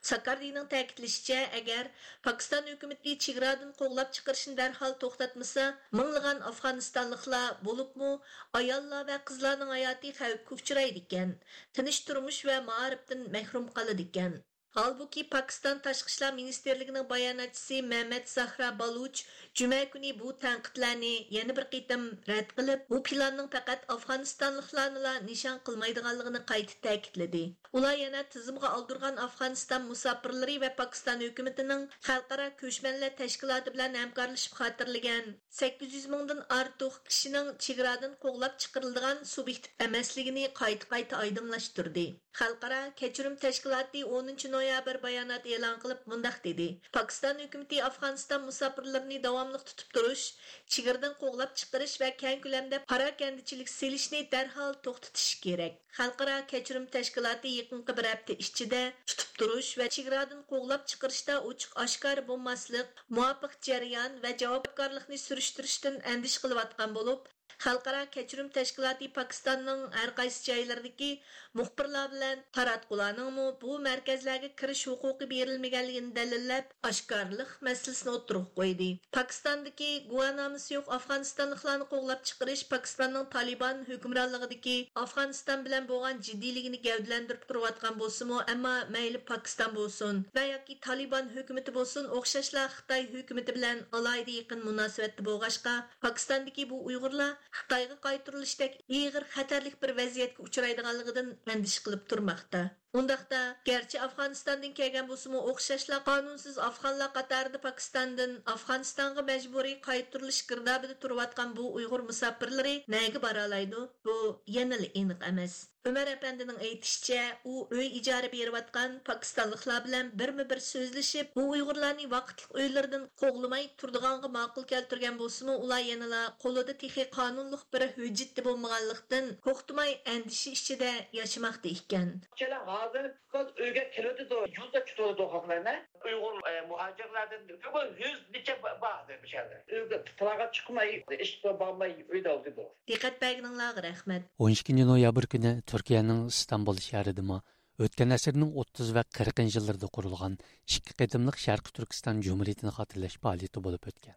ساكاردىنىڭ تەكىتلىشىچە، ئەگەر پاكىستان ھۆكۈمىتى چېگرادىن قوغلاپ چىقىرىشنى دەرھال توختاتمىسا، مىڭلىغان ئافغانىستانلىقلار، بولۇپمۇ ئاياللار ۋە قىزلارنىڭ ھاياتى خەۋپكە ئۇچرايدىكەن، تىنچ تۇرمۇش ۋە مائارىپتىن مەھرۇم قالىدىكەن. ھالبۇكى، پاكىستان تاشقى ئىشلار مىنىستىرلىكىنىڭ باياناتچىسى مەمەت زاھرا بالۇچ جۈمە كۈنى بۇ تەنقىدلەرنى يەنە بىر قېتىم رەت قىلىپ، بۇ پىلاننىڭ پەقەت ئافغانىستانلىقلارنىلا نىشان قىلمايدىغانلىقىنى قايتا تەكىتلىدى. ئۇلار يەنە تىزىمغا ئالدۇرغان ئافغانىستان مۇساپىرلىرى ۋە پاكىستان ھۆكۈمىتىنىڭ خەلقئارا كۆچمەنلەر تەشكىلاتى بىلەن ھەمكارلىشىپ خاتىرىلىگەن سەككىز يۈز مىڭدىن ئارتۇق كىشىنىڭ چېگرادىن قوغلاپ چىقىرىلىدىغان سۇبيېكت ئەمەسلىكىنى قايتا-قايتا ئايدىڭلاشتۇردى. خەلقئارا كەچۈرۈم تەشكىلاتى ئونىنچى نويابىر بايانات ئېلان قىلىپ مۇنداق دېدى: پاكىستان ھۆكۈمىتى ئافغانىستان مۇساپىرلىرىنى داۋاملىق تۇتۇپ تۇرۇش، چېگرىدىن قوغلاپ چىقىرىش ۋە كەڭ كۆلەمدە پاراكەندىچىلىك سېلىشنى دەرھال توختىتىشى كېرەك. خەلقئارا كەچۈرۈم تەشكىلاتى يېقىنقى بىر ھەپتە ئىچىدە تۇتۇپ تۇرۇش ۋە چېگرادىن قوغلاپ چىقىرىشتا ئوچۇق ئاشكارا بولماسلىق، مۇۋاپىق جەريان ۋە جاۋابكارلىقنى سۈرۈشتۈرۈشتىن ئەندىشە قىلىۋاتقان بولۇپ، خەلقئارا كەچۈرۈم تەشكىلاتى پاكىستاننىڭ ھەر قايسى جايلىرىدىكى مۇخبىرلار بىلەن تاراتقۇلارنىڭمۇ بۇ مەركەزلەرگە كىرىش ھوقۇقى بېرىلمىگەنلىكىنى دەلىللەپ، ئاشكارىلىق مەسىلىسىنى ئوتتۇرىغا قويدى. پاكىستاندىكى گۇۋاھنامىسى يوق ئافغانىستانلىقلارنى قوغلاپ چىقىرىش پاكىستاننىڭ تالىبان ھۆكۈمرانلىقىدىكى ئافغانىستان بىلەن بولغان جىددىيلىكىنى گەۋدىلەندۈرۈپ تۇرۇۋاتقان بولسىمۇ، ئەمما مەيلى پاكىستان بولسۇن ۋە ياكى تالىبان ھۆكۈمىتى بولسۇن، ئوخشاشلا خىتاي ھۆكۈمىتى بىلەن ئالاھىدە يېقىن مۇناسىۋەتتە بولغاچقا، پاكىستاندىكى بۇ ئۇيغۇرلار خىتايغا قايتۇرۇلۇشتەك ئېغىر خەتەرلىك بىر ۋەزىيەتكە ئۇچرايدىغانلىقىدىن ئەندىشە قىلىپ تۇرماقتا. ئۇنداقتا، گەرچە ئافغانىستاندىن كەلگەن بولسىمۇ، ئوخشاشلا قانۇنسىز ئافغانلار قاتارىدا پاكىستاندىن ئافغانىستانغا مەجبۇرىي قايتۇرۇلۇش گىردابىدا تۇرۇۋاتقان بۇ ئۇيغۇر مۇساپىرلىرى نەگە بارالايدۇ؟ بۇ يەنىلا ئېنىق ئەمەس. ئۆمەر ئەپەندىنىڭ ئېيتىشىچە، ئۇ ئۆي ئىجارە بېرىۋاتقان پاكىستانلىقلار بىلەن بىرمۇ بىر سۆزلىشىپ، بۇ ئۇيغۇرلارنى ۋاقىتلىق ئۆيلىرىدىن قوغلىماي تۇرىدىغانغا ماقۇل كەلتۈرگەن بولسىمۇ، ئۇلار يەنىلا قولىدا تېخى قانۇنلۇق بىر ھۆججىتى بولمىغانلىقتىن، توختىماي ئەندىشە ئىچىدە ياشىماقتا ئىكەن. كېلە ھازىر قىز ئۆيگە كېلىۋېتىدۇ، يولدا كۈتۈۋېتىدۇ خەقلەرنى. ئۇيغۇر، ئە، مۇھاجىرلاردىن بىر يۈز نېچە با-، بار ھازىر بۇ يەردە. ئۆيگە تالاغا چىقماي، ئىشقا بارماي، ئۆيدە ئولتۇرىدۇ. دىققەت بەرگىنىڭلارغا رەھمەت. ئون ئىككىنچى نويابىر كۈنى تۈركىيەنىڭ ئىستانبۇل شەھىرىدىمۇ ئۆتكەن ئەسىرنىڭ ئوتتۇز ۋە قىرىقىنچى يىللىرىدا قۇرۇلغان ئىككى قېتىملىق شەرقىي تۈركىستان جۇمھۇرىيىتىنى خاتىرىلەش پائالىيىتى بولۇپ ئۆتكەن.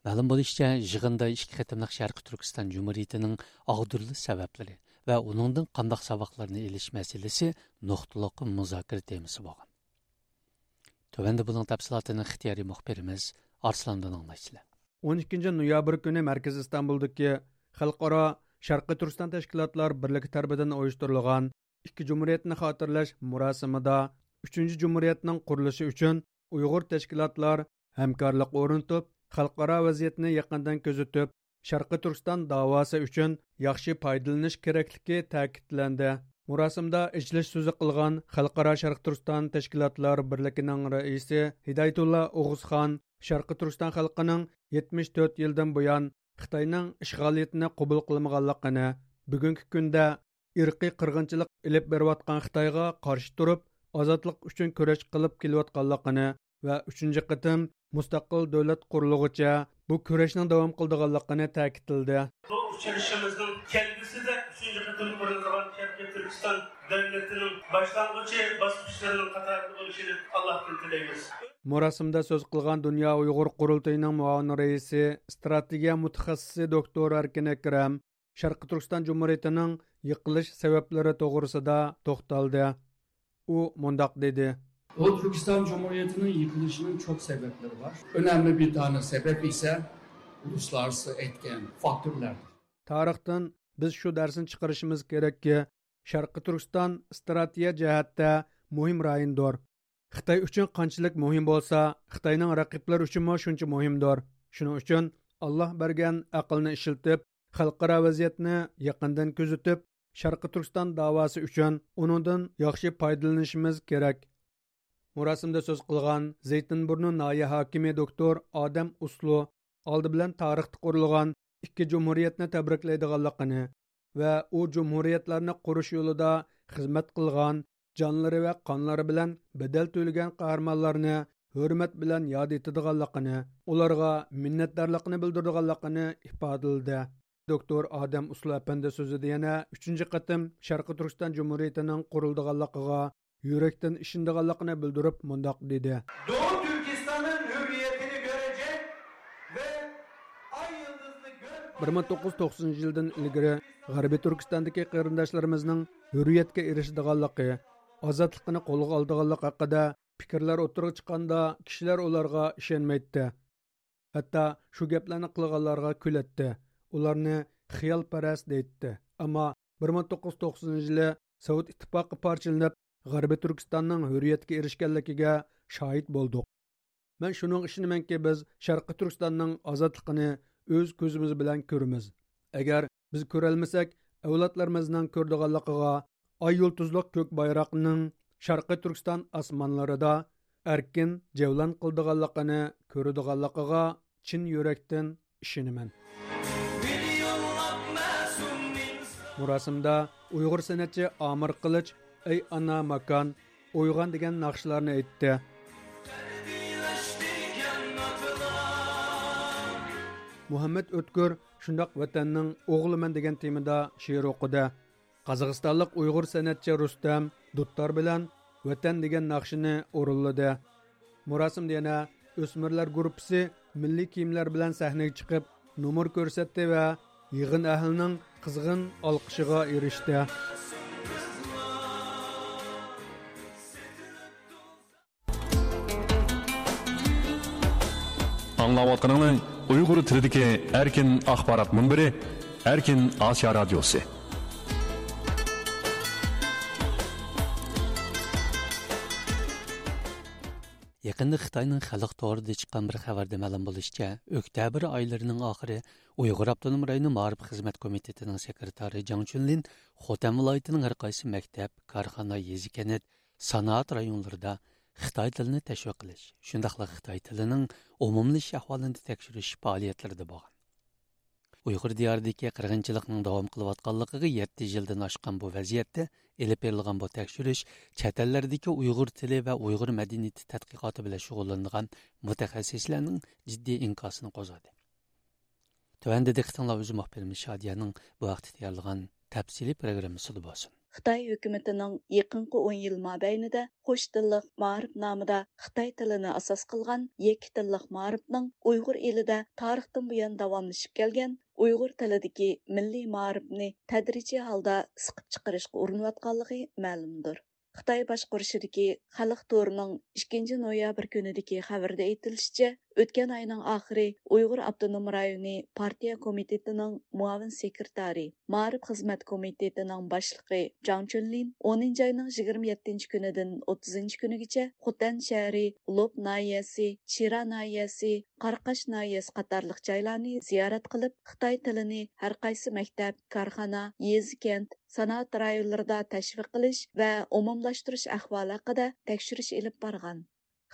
مەلۇم بولۇشىچە، يىغىندا ئىككى قېتىملىق شەرقىي تۈركىستان جۇمھۇرىيىتىنىڭ ئاغدۇرۇلۇش سەۋەبلىرى ۋە ئۇنىڭدىن قانداق ساۋاقلارنى ئېلىش مەسىلىسى نۇقتىلىق مۇزاكىرە تېمىسى بولغان. تۆۋەندە بۇنىڭ تەپسىلاتىنى ئىختىيارىي مۇخبىرىمىز ئارسلاندىن ئاڭلايسىلەر. ئون ئىككىنچى نويابىر كۈنى مەركىزىي ئىستانبۇلدىكى خەلقئارا شەرقىي تۈركىستان تەشكىلاتلار بىرلىكى تەرىپىدىن ئۇيۇشتۇرۇلغان ئىككى جۇمھۇرىيەتنى خاتىرىلەش مۇراسىمىدا ئۈچىنچى جۇمھۇرىيەتنىڭ قۇرۇلۇشى ئۈچۈن ئۇيغۇر تەشكىلاتلار ھەمكارلىق ئورنىتىپ، خەلقئارا ۋەزىيەتنى يېقىندىن كۆزىتىپ، شەرقىي تۈركىستان داۋاسى ئۈچۈن ياخشى پايدىلىنىش كېرەكلىكى تەكىتلەندى. مۇراسىمدا ئېچىلىش سۆزى قىلغان خەلقئارا شەرقىي تۈركىستان تەشكىلاتلار بىرلىكىنىڭ رەئىسى ھىدايەتۇللا ئوغۇزخان شەرقىي تۈركىستان خەلقىنىڭ يەتمىش تۆت يىلدىن بۇيان خىتاينىڭ ئىشغالىيىتىنى قوبۇل قىلمىغانلىقىنى، بۈگۈنكى كۈندە ئىرقىي قىرغىنچىلىق ئېلىپ بېرىۋاتقان خىتايغا قارشى تۇرۇپ، ئازادلىق ئۈچۈن كۈرەش قىلىپ كېلىۋاتقانلىقىنى ۋە ئۈچىنچى قېتىم مۇستەقىل دۆلەت قۇرۇلغۇچە بۇ كۈرەشنىڭ داۋام قىلىدىغانلىقىنى تەكىتلىدى. بۇ ئۇچرىشىشىمىزنىڭ كەلگۈسىدە ئۈچىنچى قېتىم قۇرۇلىدىغان شەرقىي تۈركىستان دۆلىتىنىڭ باشلانغۇچى باسقۇچلىرىنىڭ قاتارىدا بولۇشىنى ئاللاھتىن تىلەيمىز. مۇراسىمدا سۆز قىلغان دۇنيا ئۇيغۇر قۇرۇلتىيىنىڭ مۇئاۋىن رەئىسى، ئىستراتېگىيە مۇتەخەسسىسى دوكتور ئەركىن ئەكرەم، شەرقىي تۈركىستان جۇمھۇرىيىتىنىڭ يىقىلىش سەۋەبلىرى توغرىسىدا توختالدى. ئۇ مۇنداق دېدى. ئۇ تۈركىستان جۇمھۇرىيىتىنىڭ يىقىلىشىنىڭ چوق سەۋەبلىرى بار. ئۆنەملى بىر تانە سەۋەب ئىسە ئۇلۇسلارسى ئېيتكەن فاكتورلاردۇر. تارىختىن بىز شۇ دەرسنى چىقىرىشىمىز كېرەككى، شەرقىي تۈركىستان ئىستراتېگىيە جەھەتتە مۇھىم رايوندۇر. خىتاي ئۈچۈن قانچىلىك مۇھىم بولسا، خىتاينىڭ رەقىبلىرى ئۈچۈنمۇ شۇنچە مۇھىمدۇر. شۇنىڭ ئۈچۈن ئاللا بەرگەن ئەقىلنى ئىشلىتىپ، خەلقئارا ۋەزىيەتنى يېقىندىن كۆزىتىپ، شەرقىي تۈركىستان داۋاسى ئۈچۈن ئۇنىڭدىن ياخشى پايدىلىنىشىمىز كېرەك. مۇراسىمدا سۆز قىلغان زەيتىنبۇرنۇ ناھىيە ھاكىمى دوكتور ئادەم ئۇسلۇ ئالدى بىلەن تارىختا قۇرۇلغان ئىككى جۇمھۇرىيەتنى تەبرىكلەيدىغانلىقىنى ۋە ئۇ جۇمھۇرىيەتلەرنى قۇرۇش يولىدا خىزمەت قىلغان، جانلىرى ۋە قانلىرى بىلەن بەدەل تۆلىگەن قەھرىمانلارنى ھۆرمەت بىلەن ياد ئېتىدىغانلىقىنى، ئۇلارغا مىننەتدارلىقىنى بىلدۈرىدىغانلىقىنى ئىپادىلىدى. دوكتور ئادەم ئۇسلۇ ئەپەندى سۆزىدە يەنە ئۈچىنچى قېتىم شەرقىي تۈركىستان جۇمھۇرىيىتىنىڭ قۇرۇلىدىغانلىقىغا يۈرەكتىن ئىشىنىدىغانلىقىنى بىلدۈرۈپ مۇنداق دېدى. Doğu Türkistan'ın hürriyetini görecek ve ay yıldızlı gök بىر مىڭ توققۇز يۈز توقسىنىنچى يىلدىن ئىلگىرى غەربىي تۈركىستاندىكى قېرىنداشلىرىمىزنىڭ ھۆرىيەتكە ئېرىشىدىغانلىقى، ئازادلىقىنى قولغا ئالىدىغانلىقى ھەققىدە پىكىرلەر ئوتتۇرىغا چىققاندا، كىشىلەر ئۇلارغا ئىشەنمەيتتى. ھەتتا شۇ گەپلەرنى قىلغانلارغا كۈلەتتى، ئۇلارنى خىيالپەرەس دەيتتى. ئەمما بىر مىڭ توققۇز يۈز توقسىنىنچى يىلى سوۋېت ئىتتىپاقى پارچىلىنىپ، غەربىي تۈركىستاننىڭ ھۆرىيەتكە ئېرىشكەنلىكىگە شاھىت بولدۇق. مەن شۇنىڭغا ئىشىنىمەنكى، بىز شەرقىي تۈركىستاننىڭ ئازادلىقىنى ئۆز كۆزىمىز بىلەن كۆرىمىز. ئەگەر بىز كۆرەلمىسەك، ئەۋلادلىرىمىزنىڭ كۆرىدىغانلىقىغا، ئاي يۇلتۇزلۇق كۆك بايراقنىڭ شەرقىي تۈركىستان ئاسمانلىرىدا ئەركىن جەۋلان قىلىدىغانلىقىنى كۆرىدىغانلىقىغا چىن يۈرەكتىن ئىشىنىمەن. مۇراسىمدا ئۇيغۇر سەنئەتچى ئامىر قىلىچ ئەي ئانا ماكان، ئويغان دېگەن ناخشىلارنى ئېيتتى. مۇھەممەد ئۆتكۈر شۇنداق ۋەتەننىڭ ئوغلىمەن دېگەن تېمىدا شېئىر ئوقۇدى. قازاقىستانلىق ئۇيغۇر سەنئەتچى رۇستەم دۇتار بىلەن ۋەتەن دېگەن ناخشىنى ئورۇنلىدى. مۇراسىمدا يەنە ئۆسمۈرلەر گۇرۇپپىسى مىللىي كىيىملەر بىلەن سەھنىگە چىقىپ، نومۇر كۆرسەتتى ۋە يىغىن ئەھلىنىڭ قىزغىن ئالقىشىغا ئېرىشتى. ئاڭلاۋاتقىنىڭلار ئۇيغۇر تىلىدىكى ئەركىن ئاخبارات مۇنبىرى، ئەركىن ئاسىيا رادىيوسى. يېقىندا خىتاينىڭ خەلق تورىدا چىققان بىر خەۋەردە مەلۇم بولۇشىچە، ئۆكتەبىر ئايلىرىنىڭ ئاخىرى ئۇيغۇر ئاپتونوم رايونى مائارىپ خىزمەت كومىتېتىنىڭ سېكرېتارى جاڭ چۈنلىن خوتەن ۋىلايىتىنىڭ ھەر قايسى مەكتەپ، كارخانا، يېزا، كەنت، سانائەت رايونلىرىدا خىتاي تىلىنى تەشۋىق قىلىش، شۇنداقلا خىتاي تىلىنىڭ ئومۇملىشىش ئەھۋالىنى تەكشۈرۈش پائالىيەتلىرىدە بولغان. ئۇيغۇر دىيارىدىكى قىرغىنچىلىقنىڭ داۋام قىلىۋاتقانلىقىغا يەتتە يىلدىن ئاشقان بۇ ۋەزىيەتتە ئېلىپ بېرىلغان بۇ تەكشۈرۈش چەت ئەللەردىكى ئۇيغۇر تىلى ۋە ئۇيغۇر مەدەنىيىتى تەتقىقاتى بىلەن شۇغۇللىنىدىغان مۇتەخەسسىسلەرنىڭ جىددىي ئىنكاسىنى قوزغىدى. تۆۋەندە دىققىتىڭلار ئۆزى مۇخبىرىمىز شادىيەنىڭ بۇ ھەقتە تەييارلىغان تەپسىلىي پروگراممىسىدا بولسۇن. خىتاي ھۆكۈمىتىنىڭ يېقىنقى ئون يىل مابەينىدە قوش تىللىق مائارىپ نامىدا خىتاي تىلىنى ئاساس قىلغان يەككە تىللىق مائارىپنىڭ ئۇيغۇر ئېلىدە تارىختىن بۇيان داۋاملىشىپ كەلگەن ئۇيغۇر تىلىدىكى مىللىي مائارىپنى تەدرىجىي ھالدا سىقىپ چىقىرىشقا ئۇرۇنۇۋاتقانلىقى مەلۇمدۇر. خىتاي باشقۇرۇشىدىكى خەلق تورىنىڭ ئىككىنچى نويابىر كۈنىدىكى خەۋىرىدە ئېيتىلىشىچە، ئۆتكەن ئاينىڭ ئاخىرى ئۇيغۇر ئاپتونوم رايونى پارتىيە كومىتېتىنىڭ مۇئاۋىن سېكرېتارى، مائارىپ خىزمەت كومىتېتىنىڭ باشلىقى جاڭ چۈنلىن ئونىنچى ئاينىڭ يىگىرمە يەتتىنچى كۈنىدىن ئوتتۇزىنچى كۈنىگىچە خوتەن شەھىرى، لوپ ناھىيەسى، چىرا ناھىيەسى، قاراقاش ناھىيەسى قاتارلىق جايلارنى زىيارەت قىلىپ، خىتاي تىلىنى ھەر قايسى مەكتەپ، كارخانا، يېزا، كەنت، سانائەت رايونلىرىدا تەشۋىق قىلىش ۋە ئومۇملاشتۇرۇش ئەھۋالى ھەققىدە تەكشۈرۈش ئېلىپ بارغان.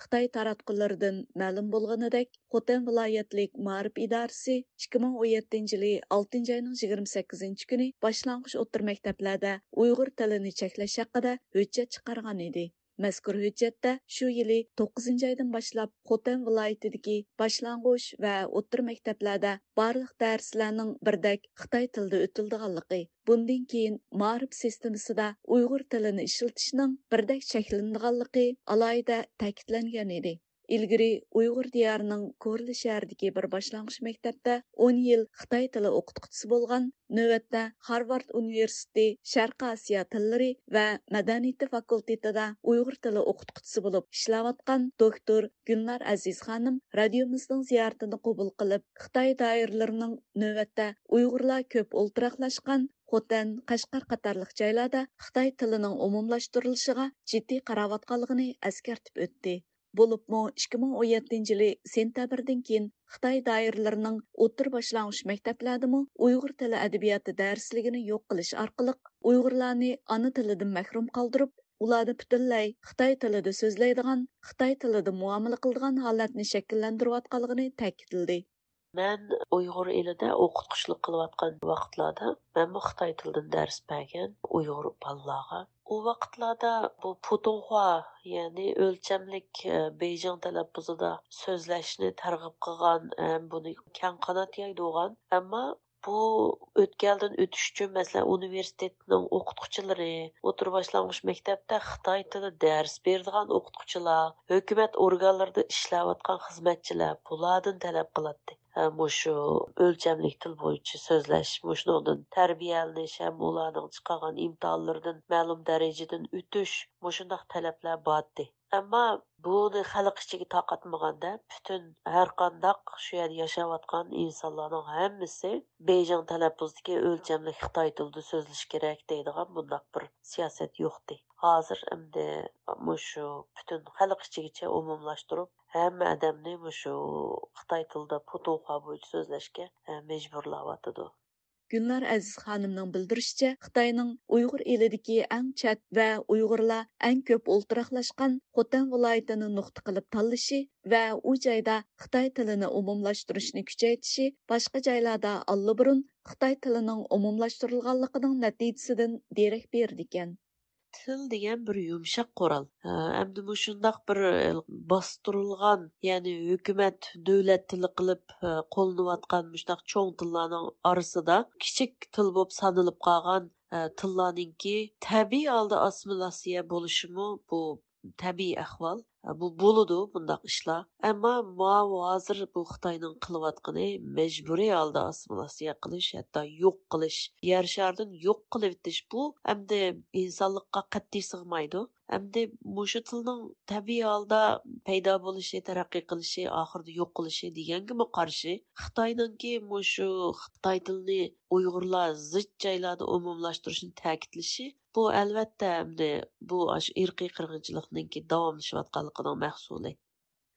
خىتاي تاراتقۇلىرىدىن مەلۇم بولغىنىدەك، خوتەن ۋىلايەتلىك مائارىپ ئىدارىسى ئىككى مىڭ ئون يەتتىنچى يىلى ئالتىنچى ئاينىڭ يىگىرمە سەككىزىنچى كۈنى باشلانغۇچ ئوتتۇرا مەكتەپلەردە ئۇيغۇر تىلىنى چەكلەش ھەققىدە ھۆججەت چىقارغان ئىدى. مەزكۇر ھۆججەتتە شۇ يىلى توققۇزىنچى ئايدىن باشلاپ خوتەن ۋىلايىتىدىكى باشلانغۇچ ۋە ئوتتۇرا مەكتەپلەردە بارلىق دەرسلەرنىڭ بىردەك خىتاي تىلىدا ئۆتۈلىدىغانلىقى، بۇندىن كېيىن مائارىپ سىستېمىسىدا ئۇيغۇر تىلىنى ئىشلىتىشنىڭ بىردەك چەكلىنىدىغانلىقى ئالاھىدە تەكىتلەنگەن ئىدى. ئىلگىرى ئۇيغۇر دىيارىنىڭ كورلا شەھىرىدىكى بىر باشلانغۇچ مەكتەپتە ئون يىل خىتاي تىلى ئوقۇتقۇچىسى بولغان، نۆۋەتتە خارۋارد ئۇنىۋېرسىتېتى شەرقىي ئاسىيا تىللىرى ۋە مەدەنىيىتى فاكۇلتېتىدا ئۇيغۇر تىلى ئوقۇتقۇچىسى بولۇپ ئىشلەۋاتقان دوكتور گۈلنار ئەزىز خانىم رادىيومىزنىڭ زىيارىتىنى قوبۇل قىلىپ، خىتاي دائىرىلىرىنىڭ نۆۋەتتە ئۇيغۇرلار كۆپ ئولتۇراقلاشقان خوتەن، قەشقەر قاتارلىق جايلاردا خىتاي تىلىنىڭ ئومۇملاشتۇرۇلۇشىغا جىددىي قاراۋاتقانلىقىنى ئەسكەرتىپ ئۆتتى. بولۇپمۇ ئىككى مىڭ ئون يەتتىنچى يىلى سېنتەبىردىن كېيىن خىتاي دائىرىلىرىنىڭ ئوتتۇرا باشلانغۇچ مەكتەپلەردىمۇ ئۇيغۇر تىلى ئەدەبىياتى دەرسلىكىنى يوق قىلىش ئارقىلىق ئۇيغۇرلارنى ئانا تىلىدىن مەھرۇم قالدۇرۇپ، ئۇلارنى پۈتۈنلەي خىتاي تىلىدا سۆزلەيدىغان، خىتاي تىلىدا مۇئامىلە قىلىدىغان ھالەتنى شەكىللەندۈرۈۋاتقانلىقىنى تەكىتلىدى. مەن ئۇيغۇر ئېلىدە ئوقۇتقۇچىلىق قىلىۋاتقان ۋاقىتلاردا مەنمۇ خىتاي تىلىدىن دەرس بەرگەن ئۇيغۇر بالىلارغا. ئۇ ۋاقىتلاردا بۇ پۇتۇڭخۇا، يەنى ئۆلچەملىك، ئە، بېيجىڭ تەلەپپۇزىدا سۆزلەشنى تەرغىب قىلغان ھەم بۇنى كەڭ قانات يايدۇرغان، ئەمما بۇ ئۆتكەلدىن ئۆتۈش ئۈچۈن، مەسىلەن، ئۇنىۋېرسىتېتنىڭ ئوقۇتقۇچىلىرى، ئوتتۇرا باشلانغۇچ مەكتەپتە خىتاي تىلى دەرس بېرىدىغان ئوقۇتقۇچىلار، ھۆكۈمەت ئورگانلىرىدا ئىشلەۋاتقان خىزمەتچىلەر بۇلاردىن تەلەپ قىلاتتى. ھە، مۇشۇ ئۆلچەملىك تىل بويىچە سۆزلەش، مۇشۇنىڭدىن تەربىيەلىنىش ھەم ئۇلارنىڭ چىقارغان ئىمتىھانلىرىدىن مەلۇم دەرىجىدىن ئۆتۈش، مۇشۇنداق تەلەپلەر بارتتى. ئەمما بۇنى خەلق ئىچىگە تارقاتمىغاندا، پۈتۈن ھەرقانداق شۇ يەردە ياشاۋاتقان ئىنسانلارنىڭ ھەممىسى بېيجىڭ تەلەپپۇزىدىكى ئۆلچەملىك خىتاي تىلىدا سۆزلىشى كېرەك دەيدىغان بۇنداق بىر سىياسەت يوقتى. ھازىر ئەمدى مۇشۇ پۈتۈن خەلق ئىچىگىچە ئومۇملاشتۇرۇپ، ھەممە ئادەمنى مۇشۇ خىتاي تىلىدا پۇتۇڭخۇا بويىچە سۆزلەشكە، ئە، مەجبۇرلاۋاتىدۇ. گۈلنار ئەزىز خانىمنىڭ بىلدۈرۈشىچە، خىتاينىڭ ئۇيغۇر ئېلىدىكى ئەڭ چەت ۋە ئۇيغۇرلار ئەڭ كۆپ ئولتۇراقلاشقان خوتەن ۋىلايىتىنى نۇقتا قىلىپ تاللىشى ۋە ئۇ جايدا خىتاي تىلىنى ئومۇملاشتۇرۇشنى كۈچەيتىشى باشقا جايلاردا ئاللىبۇرۇن خىتاي تىلىنىڭ ئومۇملاشتۇرۇلغانلىقىنىڭ نەتىجىسىدىن دېرەك بېرىدىكەن. تىل دېگەن بىر يۇمشاق قورال. ئە، ئەمدى مۇشۇنداق بىر، ئە، باستۇرۇلغان، يەنى ھۆكۈمەت، دۆلەت تىلى قىلىپ، ئە، قوللىنىۋاتقان مۇشۇنداق چوڭ تىللارنىڭ ئارىسىدا كىچىك تىل بولۇپ سانىلىپ قالغان، ئە، تىللارنىڭكى تەبىئىي ھالدا ئاسسىمىلياتسىيە بولۇشىمۇ بۇ تەبىئىي ئەھۋال. ئە، بۇ بولىدۇ بۇنداق ئىشلار. ئەمما ماۋۇ ھازىر بۇ خىتاينىڭ قىلىۋاتقىنى مەجبۇرىي ھالدا ئاسسىمىلياتسىيە قىلىش، ھەتتا يوق قىلىش، يەر شارىدىن يوق قىلىۋېتىش، بۇ ئەمدى ئىنسانلىققا قەتئىي سىغمايدۇ. ئەمدى مۇشۇ تىلنىڭ تەبىئىي ھالدا پەيدا بولۇشى، تەرەققىي قىلىشى، ئاخىرىدا يوق قىلىشى دېگەنگىمۇ قارشى، خىتاينىڭكى مۇشۇ خىتاي تىلىنى ئۇيغۇرلار زىچ جايلاردا ئومۇملاشتۇرۇشىنى تەكىتلىشى، بۇ ئەلۋەتتە ئەمدى بۇ ئاشۇ ئىرقىي قىرغىنچىلىقنىڭكى داۋاملىشىۋاتقانلىقىنىڭ مەھسۇلى.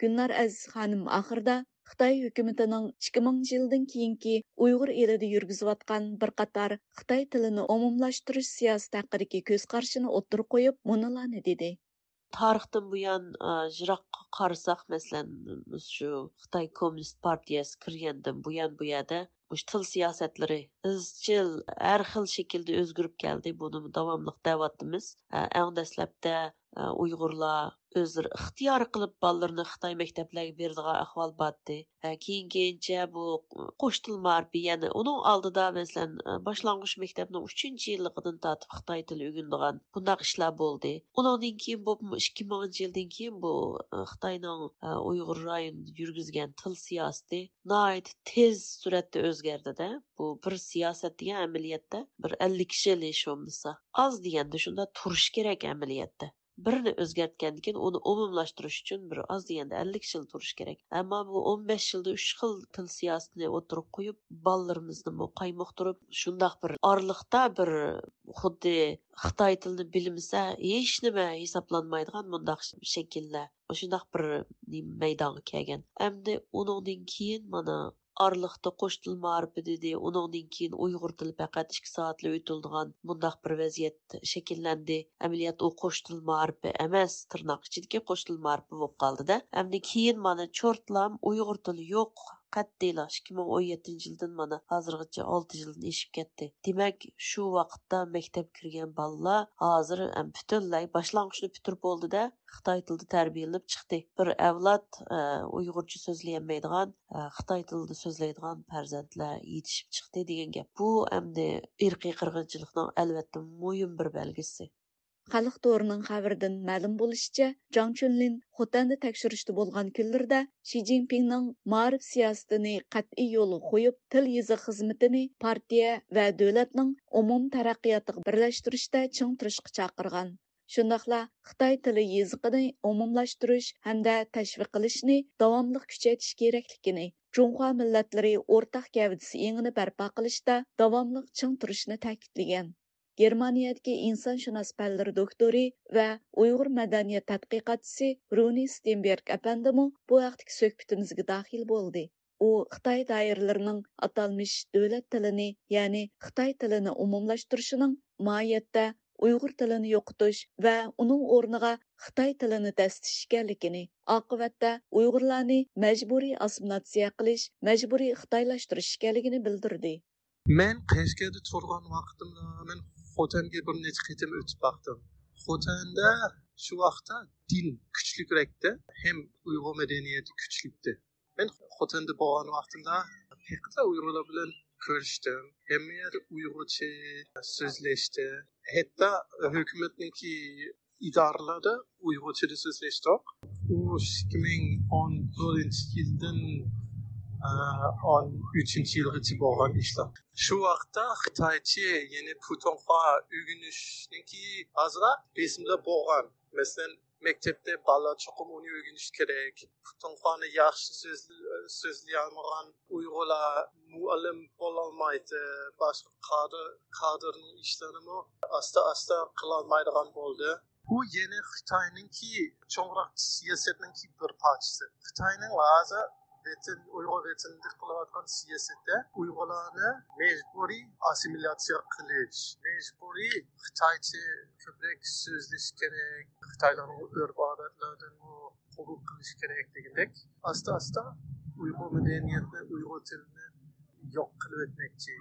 گۈلنار ئەزىز خانىم ئاخىرىدا خىتاي ھۆكۈمىتىنىڭ ئىككى مىڭىنچى يىلدىن كېيىنكى ئۇيغۇر ئېلىدا يۈرگۈزۈۋاتقان بىر قاتار خىتاي تىلىنى ئومۇملاشتۇرۇش سىياسىتى ھەققىدىكى كۆز قارىشىنى ئوتتۇرىغا قويۇپ، مۇنۇلارنى دېدى. تارىختىن بۇيان، ئا، يىراققا قارىساق، مەسىلەن، شۇ خىتاي كوممۇنىست پارتىيەسى كىرگەندىن بۇيان بۇ يەردە مۇشۇ تىل سىياسەتلىرى ئىزچىل ھەر خىل شەكىلدە ئۆزگىرىپ كەلدى. بۇنىمۇ داۋاملىق دەۋاتىمىز. ئا، ئەڭ دەسلەپتە، ئا، ئۇيغۇرلار ئۆزلىرى ئىختىيارىي قىلىپ بالىلىرىنى خىتاي مەكتەپلەرگە بېرىدىغان ئەھۋال بارتى. ھە، كېيىن-كېيىنچە بۇ قوش تىل مائارىپى، يەنى ئۇنىڭ ئالدىدا، مەسىلەن، باشلانغۇچ مەكتەپنىڭ ئۈچىنچى يىللىقىدىن تارتىپ خىتاي تىلى ئۆگىنىدىغان بۇنداق ئىشلار بولدى. ئۇنىڭدىن كېيىن بولۇپمۇ ئىككى مىڭىنچى يىلدىن كېيىن بۇ، ئە، خىتاينىڭ، ئە، ئۇيغۇر رايونىدا يۈرگۈزگەن تىل سىياسىتى ناھايىتى تېز سۈرئەتتە ئۆزگەردى-دە. بۇ بىر سىياسەت دېگەن ئەمەلىيەتتە بىر ئەللىك يىل ھېچ بولمىسا. ئاز دېگەندە شۇنداق تۇرۇش كېرەك ئەمەلىيەتتە. بىرنى ئۆزگەرتكەندىن كېيىن ئۇنى ئومۇملاشتۇرۇش ئۈچۈن بىر ئاز دېگەندە ئەللىك يىل تۇرۇش كېرەك. ئەمما بۇ ئون بەش يىلدا ئۈچ خىل تىل سىياسىتىنى ئوتتۇرىغا قويۇپ، بالىلىرىمىزنىمۇ قايمۇقتۇرۇپ، شۇنداق بىر ئارىلىقتا بىر خۇددى خىتاي تىلىنى بىلمىسە ھېچنېمە ھېسابلانمايدىغان مۇنداق شەكىللەر، شۇنداق بىر نېمە مەيدانغا كەلگەن. ئەمدى ئۇنىڭدىن كېيىن مانا ئارىلىقتا قوش تىل مائارىپى دېدى، ئۇنىڭدىن كېيىن ئۇيغۇر تىلى پەقەت ئىككى سائەتلا ئۆتۈلىدىغان مۇنداق بىر ۋەزىيەت شەكىللەندى. ئەمەلىيەتتە ئۇ قوش تىل مائارىپى ئەمەس، تىرناق ئىچىدىكى قوش تىل مائارىپى بولۇپ قالدى-دە. ئەمدى كېيىن مانا چورتلام ئۇيغۇر تىلى يوق، قەتئىيلا ئىككى مىڭ ئون يەتتىنچى يىلدىن مانا ھازىرغىچە ئالتە يىلدىن ئېشىپ كەتتى. دېمەك، شۇ ۋاقىتتا مەكتەپكە كىرگەن بالىلار ھازىر، ئەم، پۈتۈنلەي باشلانغۇچنى پۈتتۈرۈپ بولدى-دە، خىتاي تىلىدا تەربىيەلىنىپ چىقتى. بىر ئەۋلاد، ئە، ئۇيغۇرچە سۆزلىيەلمەيدىغان، ئە، خىتاي تىلىدا سۆزلەيدىغان پەرزەنتلەر يېتىشىپ چىقتى دېگەن گەپ. بۇ ئەمدى ئىرقىي قىرغىنچىلىقنىڭ ئەلۋەتتە مۇھىم بىر بەلگىسى. خەلق تورىنىڭ خەۋىرىدىن مەلۇم بولۇشىچە، جاڭ چۈنلىن خوتەندە تەكشۈرۈشتە بولغان كۈنلىرىدە شى جىنپىڭنىڭ مائارىپ سىياسىتىنى قەتئىي يولغا قويۇپ، تىل يېزىق خىزمىتىنى پارتىيە ۋە دۆلەتنىڭ ئومۇمىي تەرەققىياتىغا بىرلەشتۈرۈشتە چىڭ تۇرۇشقا چاقىرغان. شۇنداقلا خىتاي تىلى يېزىقىنى ئومۇملاشتۇرۇش ھەمدە تەشۋىق قىلىشنى داۋاملىق كۈچەيتىش كېرەكلىكىنى، جۇڭخۇا مىللەتلىرى ئورتاق گەۋدىسى ئېڭىنى بەرپا قىلىشتا داۋاملىق چىڭ تۇرۇشنى تەكىتلىگەن. گېرمانىيەدىكى ئىنسانشۇناس پەنلىرى دوكتورى ۋە ئۇيغۇر مەدەنىيەت تەتقىقاتچىسى رۇنى ستېنبېرگ ئەپەندىمۇ بۇ ھەقتىكى سۆھبىتىمىزگە داخىل بولدى. ئۇ خىتاي دائىرىلىرىنىڭ ئاتالمىش دۆلەت تىلىنى، يەنى خىتاي تىلىنى ئومۇملاشتۇرۇشىنىڭ ماھىيەتتە ئۇيغۇر تىلىنى يوقىتىش ۋە ئۇنىڭ ئورنىغا خىتاي تىلىنى دەسسىتىش ئىكەنلىكىنى، ئاقىۋەتتە ئۇيغۇرلارنى مەجبۇرىي ئاسسىمىلياتسىيە قىلىش، مەجبۇرىي خىتايلاشتۇرۇش ئىكەنلىكىنى بىلدۈردى. مەن قەشقەردە تۇرغان ۋاقتىمدا مەن خوتەنگە بىر نەچچە قېتىم ئۆتۈپ باقتىم. خوتەندە شۇ ۋاقىتتا دىن كۈچلۈكرەكتى. ھەم ئۇيغۇر مەدەنىيىتى كۈچلۈكتى. مەن خوتەندە بولغان ۋاقتىمدا ھەقىقەتەن ئۇيغۇرلار بىلەن كۆرۈشتۈم. ھەممە يەردە ئۇيغۇرچە سۆزلەشتى. ھەتتا ھۆكۈمەتنىڭكى ئىدارىلەردە ئۇيغۇرچىدا سۆزلەشتۇق. ئۇ ئىككى مىڭ ئون تۆتىنچى يىلدىن، ئە، ئون ئۈچىنچى يىلغىچە بولغان ئىشلار. شۇ ۋاقىتتا خىتايچە، يەنى پۇتۇڭخۇا ئۆگىنىشنىڭكى ئازراق بېسىملار بولغان. مەسىلەن، مەكتەپتە بالىلار چوقۇم ئۇنى ئۆگىنىشى كېرەك. پۇتۇڭخۇانى ياخشى سۆز-، سۆزلىيەلمىگەن ئۇيغۇرلار مۇئەللىم بولالمايدۇ، باشقا كادىر، كادىرنىڭ ئىشلىرىنىمۇ ئاستا-ئاستا قىلالمايدىغان بولدى. بۇ يەنە خىتاينىڭكى چوڭراق سىياسەتنىڭكى بىر پارچىسى. خىتاينىڭ ھازىر ۋەتەن، ئۇيغۇر ۋەتىنىدە قىلىۋاتقان سىياسىتى ئۇيغۇرلارنى مەجبۇرىي ئاسسىمىلياتسىيە قىلىش، مەجبۇرىي خىتايچە كۆپرەك سۆزلىشى كېرەك، خىتايلارنىڭ ئۆرپ-ئادەتلىرىدىنمۇ قوبۇل قىلىش كېرەك دېگەندەك، ئاستا-ئاستا ئۇيغۇر مەدەنىيەتنى، ئۇيغۇر تىلىنى يوق قىلىۋەتمەكچى.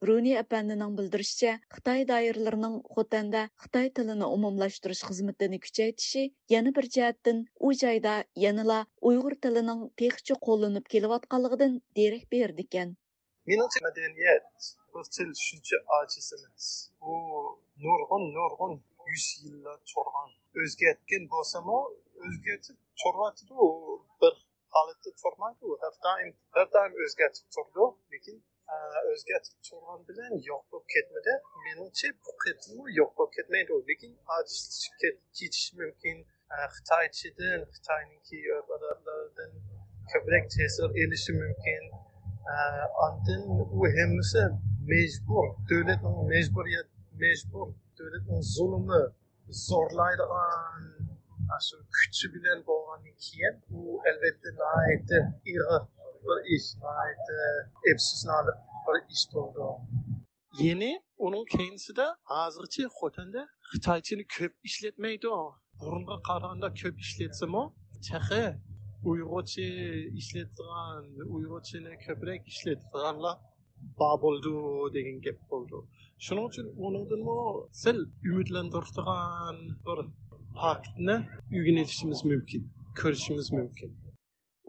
رۇنى ئەپەندىنىڭ بىلدۈرۈشىچە، خىتاي دائىرىلىرىنىڭ خوتەندە خىتاي تىلىنى ئومۇملاشتۇرۇش خىزمىتىنى كۈچەيتىشى يەنە بىر جەھەتتىن ئۇ جايدا يەنىلا ئۇيغۇر تىلىنىڭ تېخىچە قوللىنىپ كېلىۋاتقانلىقىدىن دېرەك بېرىدىكەن. مېنىڭچە، مەدەنىيەت، بىر تىل شۇنچە ئاجىز ئەمەس. ئۇ نۇرغۇن، نۇرغۇن يۈز يىللار تۇرغان. ئۆزگەرتكەن بولسىمۇ، ئۆزگەرتىپ تۇرۇۋاتىدۇ. بىر ھالەتتە تۇرمايدۇ. ھەر دائىم، ھەر دائىم ئۆزگەرتىپ تۇرىدۇ. لېكىن، ئە، ئۆزگەرتىپ تۇرغان بىلەن يوق بولۇپ كەتمىدى. مېنىڭچە، بۇ قېتىممۇ يوق بولۇپ كەتمەيدۇ. لېكىن ئاجىزلىشىپ كېتىشى مۇمكىن. ئە، خىتايچىدىن، خىتاينىڭكى ئۆرپ-ئادەتلىرىدىن كۆپرەك تەسىر ئېلىشى مۇمكىن. ئە، ئاندىن ئۇ ھەممىسى مەجبۇر، دۆلەتنىڭ مەجبۇرىيەت، مەجبۇر، دۆلەتنىڭ زۇلۇمى، زورلايدىغان ئاشۇ كۈچى بىلەن بولغاندىن كېيىن، بۇ ئەلۋەتتە ناھايىتى ئېغىر بىر ئىش، ناھايىتى ئەپسۇسلىنارلىق بىر ئىش بولدى. يەنى ئۇنىڭ كەينىسىدە ھازىرچە خوتەندە خىتايچىنى كۆپ ئىشلەتمەيدۇ. بۇرۇنغا قارىغاندا كۆپ ئىشلەتسىمۇ، تېخى ئۇيغۇرچە ئىشلەتىدىغان، ئۇيغۇرچىنى كۆپرەك ئىشلەتىدىغانلار بار بولىدۇ دېگەن گەپ بولىدۇ. شۇنىڭ ئۈچۈن ئۇنىڭدىنمۇ سەل ئۈمىدلەندۈرىدىغان بىر پاكىتنى ئۆگىنىۋېتىشىمىز مۇمكىن، كۆرۈشىمىز مۇمكىن.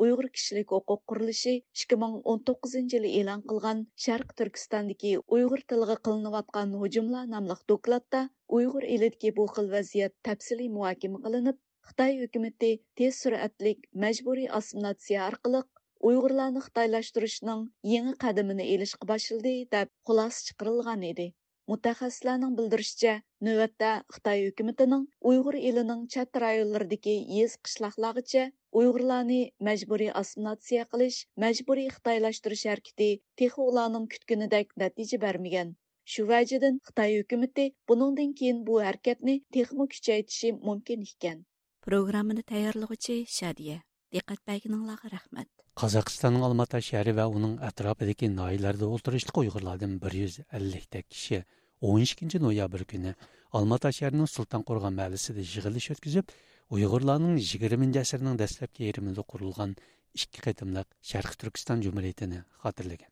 ئۇيغۇر كىشىلىك ھوقۇق قۇرۇلۇشى ئىككى مىڭ ئون توققۇزىنچى يىلى ئېلان قىلغان شەرقىي تۈركىستاندىكى ئۇيغۇر تىلىغا قىلىنىۋاتقان ھۇجۇملار ناملىق دوكلاتتا ئۇيغۇر ئېلىدىكى بۇ خىل ۋەزىيەت تەپسىلىي مۇھاكىمە قىلىنىپ، خىتاي ھۆكۈمىتى تېز سۈرئەتلىك مەجبۇرىي ئاسسىمىلياتسىيە ئارقىلىق ئۇيغۇرلارنى خىتايلاشتۇرۇشنىڭ يېڭى قەدىمىنى ئېلىشقا باشلىدى، دەپ خۇلاسە چىقىرىلغان ئىدى. مۇتەخەسسىسلەرنىڭ بىلدۈرۈشىچە، نۆۋەتتە خىتاي ھۆكۈمىتىنىڭ ئۇيغۇر ئېلىنىڭ چەت رايونلىرىدىكى يېزا، قىشلاقلارغىچە ئۇيغۇرلارنى مەجبۇرىي ئاسسىمىلياتسىيە قىلىش، مەجبۇرىي خىتايلاشتۇرۇش ھەرىكىتى تېخى ئۇلارنىڭ كۈتكىنىدەك نەتىجە بەرمىگەن. شۇ ۋەجىدىن خىتاي ھۆكۈمىتى بۇنىڭدىن كېيىن بۇ ھەرىكەتنى تېخىمۇ كۈچەيتىشى مۇمكىن ئىكەن. پروگراممىنى تەييارلىغۇچى شادىيە. دىققەت بەرگىنىڭلارغا رەھمەت. قازاقىستاننىڭ ئالماتا شەھىرى ۋە ئۇنىڭ ئەتراپىدىكى ناھىيەلەردە ئولتۇرۇشلۇق ئۇيغۇرلاردىن بىر يۈز ئەللىكتەك كىشى ئون ئىككىنچى نويابىر كۈنى ئالماتا شەھىرىنىڭ سۇلتان قورغان مەھەللىسىدە يىغىلىش ئۆتكۈزۈپ، ئۇيغۇرلارنىڭ يىگىرمىنچى ئەسىرنىڭ دەسلەپكى يېرىمىدا قۇرۇلغان ئىككى قېتىملىق شەرقىي تۈركىستان جۇمھۇرىيىتىنى خاتىرىلىگەن.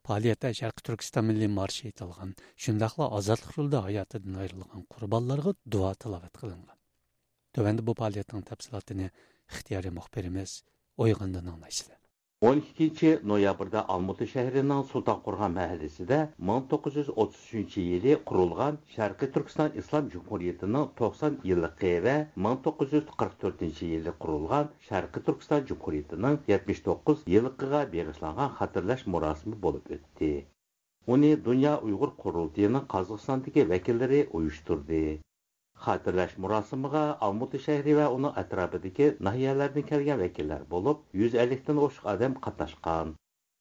پائالىيەتتە شەرقىي تۈركىستان مىللىي مارشى ئېيتىلغان، شۇنداقلا ئازادلىق يولىدا ھاياتىدىن ئايرىلغان قۇربانلارغا دۇئا تىلاۋەت قىلىنغان. تۆۋەندە بۇ پائالىيەتنىڭ تەپسىلاتىنى ئىختىيارىي مۇخبىرىمىز ئويغاندىن ئاڭلايسىلەر. ئون ئىككىنچى نويابىردا ئالمۇتا شەھىرىنىڭ سۇلتان قورغان مەھەللىسىدە مىڭ توققۇز يۈز ئوتتۇز ئۈچىنچى يىلى قۇرۇلغان شەرقىي تۈركىستان ئىسلام جۇمھۇرىيىتىنىڭ توقسان يىللىقى ۋە مىڭ توققۇز يۈز قىرىق تۆتىنچى يىلى قۇرۇلغان شەرقىي تۈركىستان جۇمھۇرىيىتىنىڭ يەتمىش توققۇز يىللىقىغا بېغىشلانغان خاتىرىلەش مۇراسىمى بولۇپ ئۆتتى. ئۇنى دۇنيا ئۇيغۇر قۇرۇلتىيىنىڭ قازاقىستاندىكى ۋەكىللىرى ئۇيۇشتۇردى. خاتىرىلەش مۇراسىمىغا ئالمۇتا شەھىرى ۋە ئۇنىڭ ئەتراپىدىكى ناھىيەلەردىن كەلگەن ۋەكىللەر بولۇپ، يۈز ئەللىكتىن ئوشۇق ئادەم قاتناشقان.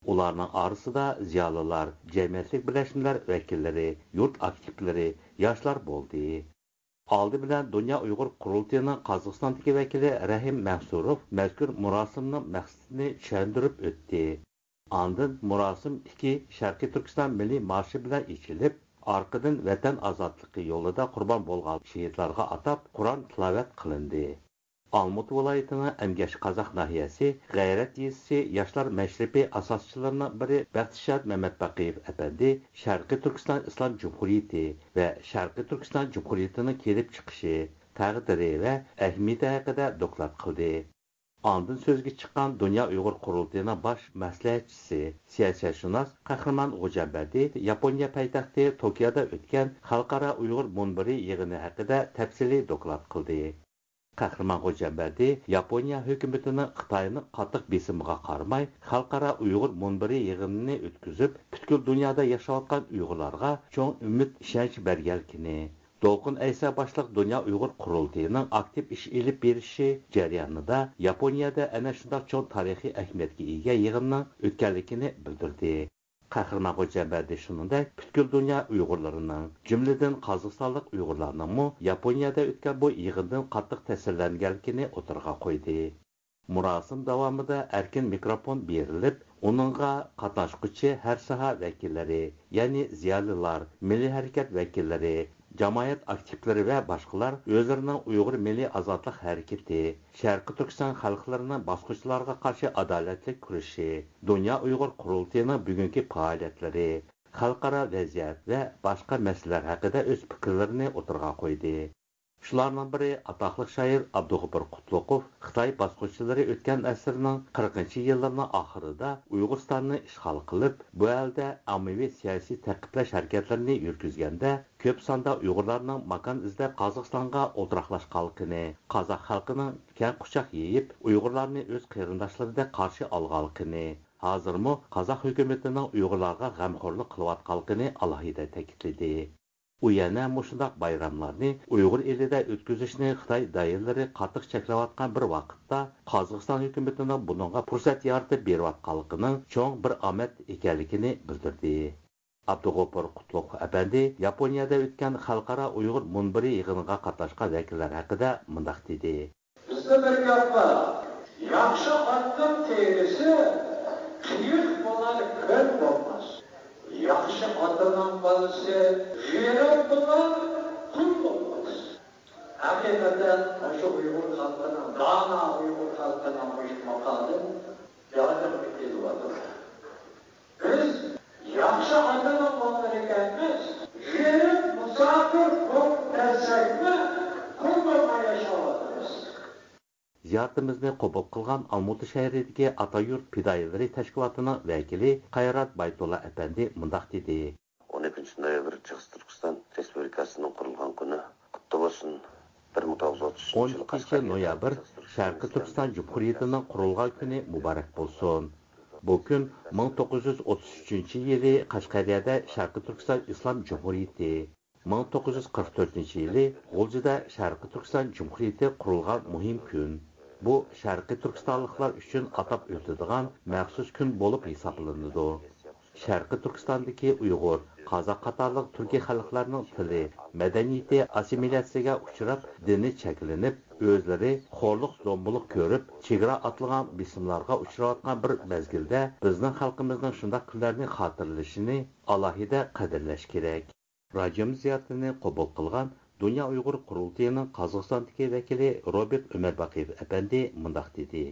ئۇلارنىڭ ئارىسىدا زىيالىيلار، جەمئىيەتلىك بىرلەشمىلەر ۋەكىللىرى، يۇرت ئاكتىپلىرى، ياشلار بولدى. ئالدى بىلەن دۇنيا ئۇيغۇر قۇرۇلتىيىنىڭ قازاقىستاندىكى ۋەكىلى رەھىم مەنسۇروف مەزكۇر مۇراسىمنىڭ مەقسىتىنى چۈشەندۈرۈپ ئۆتتى. ئاندىن مۇراسىم ئىككى شەرقىي تۈركىستان مىللىي مارشى بىلەن ئېچىلىپ، ئارقىدىن ۋەتەن ئازادلىقى يولىدا قۇربان بولغان شېھىتلارغا ئاتاپ قۇرئان تىلاۋەت قىلىندى. ئالمۇتا ۋىلايىتىنىڭ ئەمگەشقازاق ناھىيەسى غەيرەت يېزىسى ياشلار مەشرىپى ئاساسچىلىرىنىڭ بىرى بەختىشاد مەمەتباقىيېۋ ئەپەندى شەرقىي تۈركىستان ئىسلام جۇمھۇرىيىتى ۋە شەرقىي تۈركىستان جۇمھۇرىيىتىنىڭ كېلىپ چىقىشى، تەقدىرى ۋە ئەھمىيىتى ھەققىدە دوكلات قىلدى. ئاندىن سۆزگە چىققان دۇنيا ئۇيغۇر قۇرۇلتىيىنىڭ باش مەسلىھەتچىسى، سىياسەتشۇناس قەھرىمان غوجامبەردى ياپونىيە پايتەختى توكيودا ئۆتكەن خەلقئارا ئۇيغۇر مۇنبىرى يىغىنى ھەققىدە تەپسىلىي دوكلات قىلدى. قەھرىمان غوجامبەردى ياپونىيە ھۆكۈمىتىنىڭ خىتاينىڭ قاتتىق بېسىمىغا قارىماي، خەلقئارا ئۇيغۇر مۇنبىرى يىغىنىنى ئۆتكۈزۈپ، پۈتكۈل دۇنيادا ياشاۋاتقان ئۇيغۇرلارغا چوڭ ئۈمىد، ئىشەنچ بەرگەنلىكىنى، دولقۇن ئەيسا باشلىق دۇنيا ئۇيغۇر قۇرۇلتىيىنىڭ ئاكتىپ ئىش ئېلىپ بېرىشى جەريانىدا ياپونىيەدە ئەنە شۇنداق چوڭ تارىخىي ئەھمىيەتكە ئىگە يىغىننىڭ ئۆتكەنلىكىنى بىلدۈردى. قەھرىمان غوجامبەردى شۇنىڭدەك پۈتكۈل دۇنيا ئۇيغۇرلىرىنىڭ، جۈملىدىن قازاقىستانلىق ئۇيغۇرلارنىڭمۇ ياپونىيەدە ئۆتكەن بۇ يىغىندىن قاتتىق تەسىرلەنگەنلىكىنى ئوتتۇرىغا قويدى. مۇراسىم داۋامىدا ئەركىن مىكروفون بېرىلىپ، ئۇنىڭغا قاتناشقۇچى ھەر ساھە ۋەكىللىرى، يەنى زىيالىيلار، مىللىي ھەرىكەت ۋەكىللىرى، جامائەت ئاكتىپلىرى ۋە باشقىلار ئۆزلىرىنىڭ ئۇيغۇر مىللىي ئازادلىق ھەرىكىتى، شەرقىي تۈركىستان خەلقلىرىنىڭ باسقۇنچىلارغا قارشى ئادالەتلىك كۈرىشى، دۇنيا ئۇيغۇر قۇرۇلتىيىنىڭ بۈگۈنكى پائالىيەتلىرى، خەلقئارا ۋەزىيەت ۋە باشقا مەسىلىلەر ھەققىدە ئۆز پىكىرلىرىنى ئوتتۇرىغا قويدى. شۇلارنىڭ بىرى، ئاتاقلىق شائىر ئابدۇغوپۇر قۇتلۇقوف خىتاي باسقۇنچىلىرى ئۆتكەن ئەسىرنىڭ قىرىقىنچى يىللىرىنىڭ ئاخىرىدا ئۇيغۇرىستاننى ئىشغال قىلىپ، بۇ ئەلدە ئاممىۋى سىياسىي تەقىبلەش ھەرىكەتلىرىنى يۈرگۈزگەندە، كۆپ ساندا ئۇيغۇرلارنىڭ ماكان ئىزدەپ قازاقىستانغا ئولتۇراقلاشقانلىقىنى، قازاق خەلقىنىڭ كەڭ قۇچاق يېيىپ، ئۇيغۇرلارنى ئۆز قېرىنداشلىرىدەك قارشى ئالغانلىقىنى، ھازىرمۇ قازاق ھۆكۈمىتىنىڭ ئۇيغۇرلارغا غەمخورلۇق قىلىۋاتقانلىقىنى ئالاھىدە تەكىتلىدى. ئۇ يەنە مۇشۇنداق بايراملارنى ئۇيغۇر ئېلىدە ئۆتكۈزۈشنى خىتاي دائىرىلىرى قاتتىق چەكلەۋاتقان بىر ۋاقىتتا، قازاقىستان ھۆكۈمىتىنىڭ بۇنىڭغا پۇرسەت يارىتىپ بېرىۋاتقانلىقىنىڭ چوڭ بىر ئامەت ئىكەنلىكىنى بىلدۈردى. ئابدۇغوپۇر قۇتلۇق ئەپەندى ياپونىيەدە ئۆتكەن خەلقئارا ئۇيغۇر مۇنبىرى يىغىنىغا قاتناشقان ۋەكىللەر ھەققىدە مۇنداق دېدى. بىزدە بىر گەپ بار. ياخشى ئاتنىڭ تېرىسى قېيىق بولار، كۆل بولماس. ياخشى ئاتىنىڭ بالىسى غېرىب بولار، قۇل بولماس. ھەقىقەتەن مۇشۇ ئۇيغۇر خەلقىنىڭ، دانا ئۇيغۇر خەلقىنىڭ مۇشۇ ماقالىدىن ياردەم كېلىۋاتىدۇ. بىز ياخشى ئاتىنىڭ بالىلىرى ئىكەنمىز، غېرىب مۇساپىر بولۇپ كەلسەكمۇ، قۇل بولماي ياشاۋاتىمىز. زىيارىتىمىزنى قوبۇل قىلغان ئالمۇتا شەھىرىدىكى ئاتا يۇرت پىدائىيلىرى تەشكىلاتىنىڭ ۋەكىلى قايرات بايتۇللا ئەپەندى مۇنداق دېدى. ئون ئىككىنچى نويابىر شەرقىي تۈركىستان رېسپۇبلىكاسىنىڭ قۇرۇلغان كۈنى قۇتلۇق بولسۇن. بىر مىڭ توققۇز يۈز ئوتتۇز ئۈچىنچى يىلى قەشقەرگە شەرقىي تۈركىستان جۇمھۇرىيىتىنىڭ قۇرۇلغان كۈنى مۇبارەك بولسۇن. بۇ كۈن مىڭ توققۇز يۈز ئوتتۇز ئۈچىنچى يىلى قەشقەرىيەدە شەرقىي تۈركىستان ئىسلام جۇمھۇرىيىتى، مىڭ توققۇز يۈز قىرىق تۆتىنچى يىلى غۇلجىدا شەرقىي تۈركىستان جۇمھۇرىيىتى قۇرۇلغان مۇھىم كۈن. بۇ شەرقىي تۈركىستانلىقلار ئۈچۈن ئاتاپ ئۆتىدىغان مەخسۇس كۈن بولۇپ ھېسابلىنىدۇ. شەرقىي تۈركىستاندىكى ئۇيغۇر، قازاق قاتارلىق تۈركىي خەلقلەرنىڭ تىلى، مەدەنىيىتى ئاسسىمىلياتسىيەگە ئۇچراپ، دىنى چەكلىنىپ، ئۆزلىرى خورلۇق-زومبىلىق كۆرۈپ، چېگرا ئاتلىغان بېسىملارغا ئۇچراۋاتقان بىر مەزگىلدە، بىزنىڭ خەلقىمىزنىڭ شۇنداق كۈنلەرنى خاتىرىلىشىنى ئالاھىدە قەدىرلەش كېرەك. راجىيومىز زىيارىتىنى قوبۇل قىلغان دۇنيا ئۇيغۇر قۇرۇلتىيىنىڭ قازاقىستاندىكى ۋەكىلى روبېرت ئۆمەرباقىيېۋ ئەپەندى مۇنداق دېدى.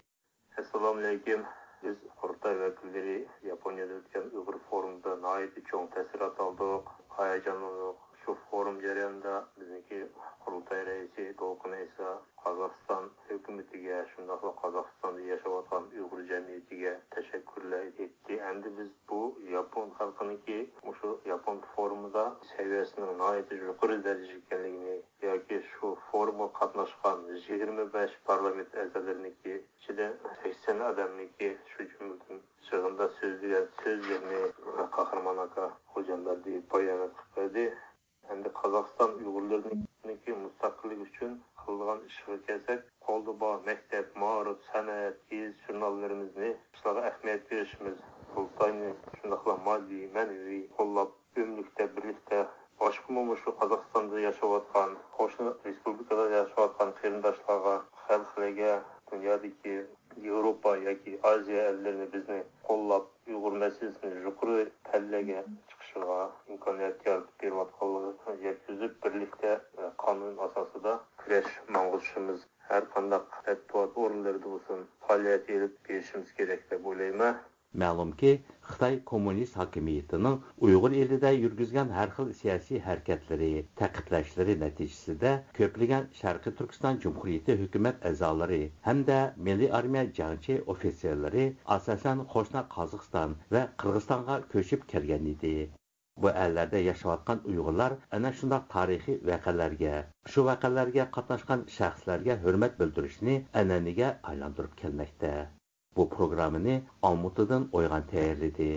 ئەسسالامۇئەلەيكۇم. بىز قۇرۇلتاي ۋەكىللىرى ياپونىيەدە ئۆتكەن ئۇيغۇر فورۇمىدا ناھايىتى چوڭ تەسىرات ئالدۇق، ھاياجانلاندۇق. شۇ فورۇم جەريانىدا بىزنىڭكى قۇرۇلتاي رەئىسى دولقۇن ئەيسا قازاقىستان ھۆكۈمىتىگە، شۇنداقلا قازاقىستاندا ياشاۋاتقان ئۇيغۇر جەمئىيىتىگە تەشەككۈرلەر ئېيتتى. ئەمدى بىز بۇ ياپون خەلقىنىڭكى مۇشۇ ياپون فورۇمىدا سەۋىيەسىنىڭ ناھايىتى يۇقىرى دەرىجىدە ئىكەنلىكىنى ياكى شۇ فورۇمغا قاتناشقان يىگىرمە بەش پارلامېنت ئەزالىرىنىڭكى ئىچىدە سەكسەن ئادەمنىڭكى، شۇ جۈملىدىن يىغىندا سۆزلىگەن سۆزلىرىنى قاھرىمان ئاكا خوجامبەردىيېۋ بايانات قىلىپ بەردى. ئەمدى قازاقىستان ئۇيغۇرلىرىنىڭكى مۇستەقىللىكى ئۈچۈن قىلىدىغان ئىشىغا كەلسەك، قولدا بار مەكتەپ، مائارىپ، سەنئەت، گېزىت-ژۇرناللىرىمىزنى ئىشلارغا ئەھمىيەت بېرىشىمىز، قۇرۇلتاينى شۇنداقلا ماددىي، مەنىۋى قوللاپ، ئۆملۈكتە بىرلىكتە باشقىمۇ مۇشۇ قازاقىستاندا ياشاۋاتقان، قوشنا رېسپۇبلىكىلاردا ياشاۋاتقان قېرىنداشلارغا، خەلقلەرگە، دۇنيادىكى ياۋروپا ياكى ئازىيا ئەللىرىنى بىزنى قوللاپ، ئۇيغۇر مەسىلىسىنى يۇقىرى پەللىگە چىقىشىغا ئىمكانىيەت يارىتىپ بېرىۋاتقانلىقىنى يەتكۈزۈپ، بىرلىكتە، ئە، قانۇن ئاساسىدا كۈرەش ماڭغۇزۇشىمىز، ھەر قانداق مەتبۇئات ئورۇنلىرىدا بولسۇن، پائالىيەت ئېلىپ بېرىشىمىز كېرەك دەپ ئويلايمەن. مەلۇمكى، خىتاي كوممۇنىست ھاكىمىيىتىنىڭ ئۇيغۇر ئېلىدە يۈرگۈزگەن ھەر خىل سىياسىي ھەرىكەتلىرى، تەقىبلەشلىرى نەتىجىسىدە كۆپلىگەن شەرقىي تۈركىستان جۇمھۇرىيىتى ھۆكۈمەت ئەزالىرى ھەمدە مىللىي ئارمىيە جەڭچى ئوفىتسېرلىرى ئاساسەن قوشنا قازاقىستان ۋە قىرغىزىستانغا كۆچۈپ كەلگەن ئىدى. بۇ ئەللەردە ياشاۋاتقان ئۇيغۇرلار ئەنە شۇنداق تارىخىي ۋەقەلەرگە، شۇ ۋەقەلەرگە قاتناشقان شەخسلەرگە ھۆرمەت بىلدۈرۈشنى ئەنئەنىگە ئايلاندۇرۇپ كەلمەكتە. بۇ پروگراممىنى ئالمۇتىدىن ئويغان تەييارلىدى.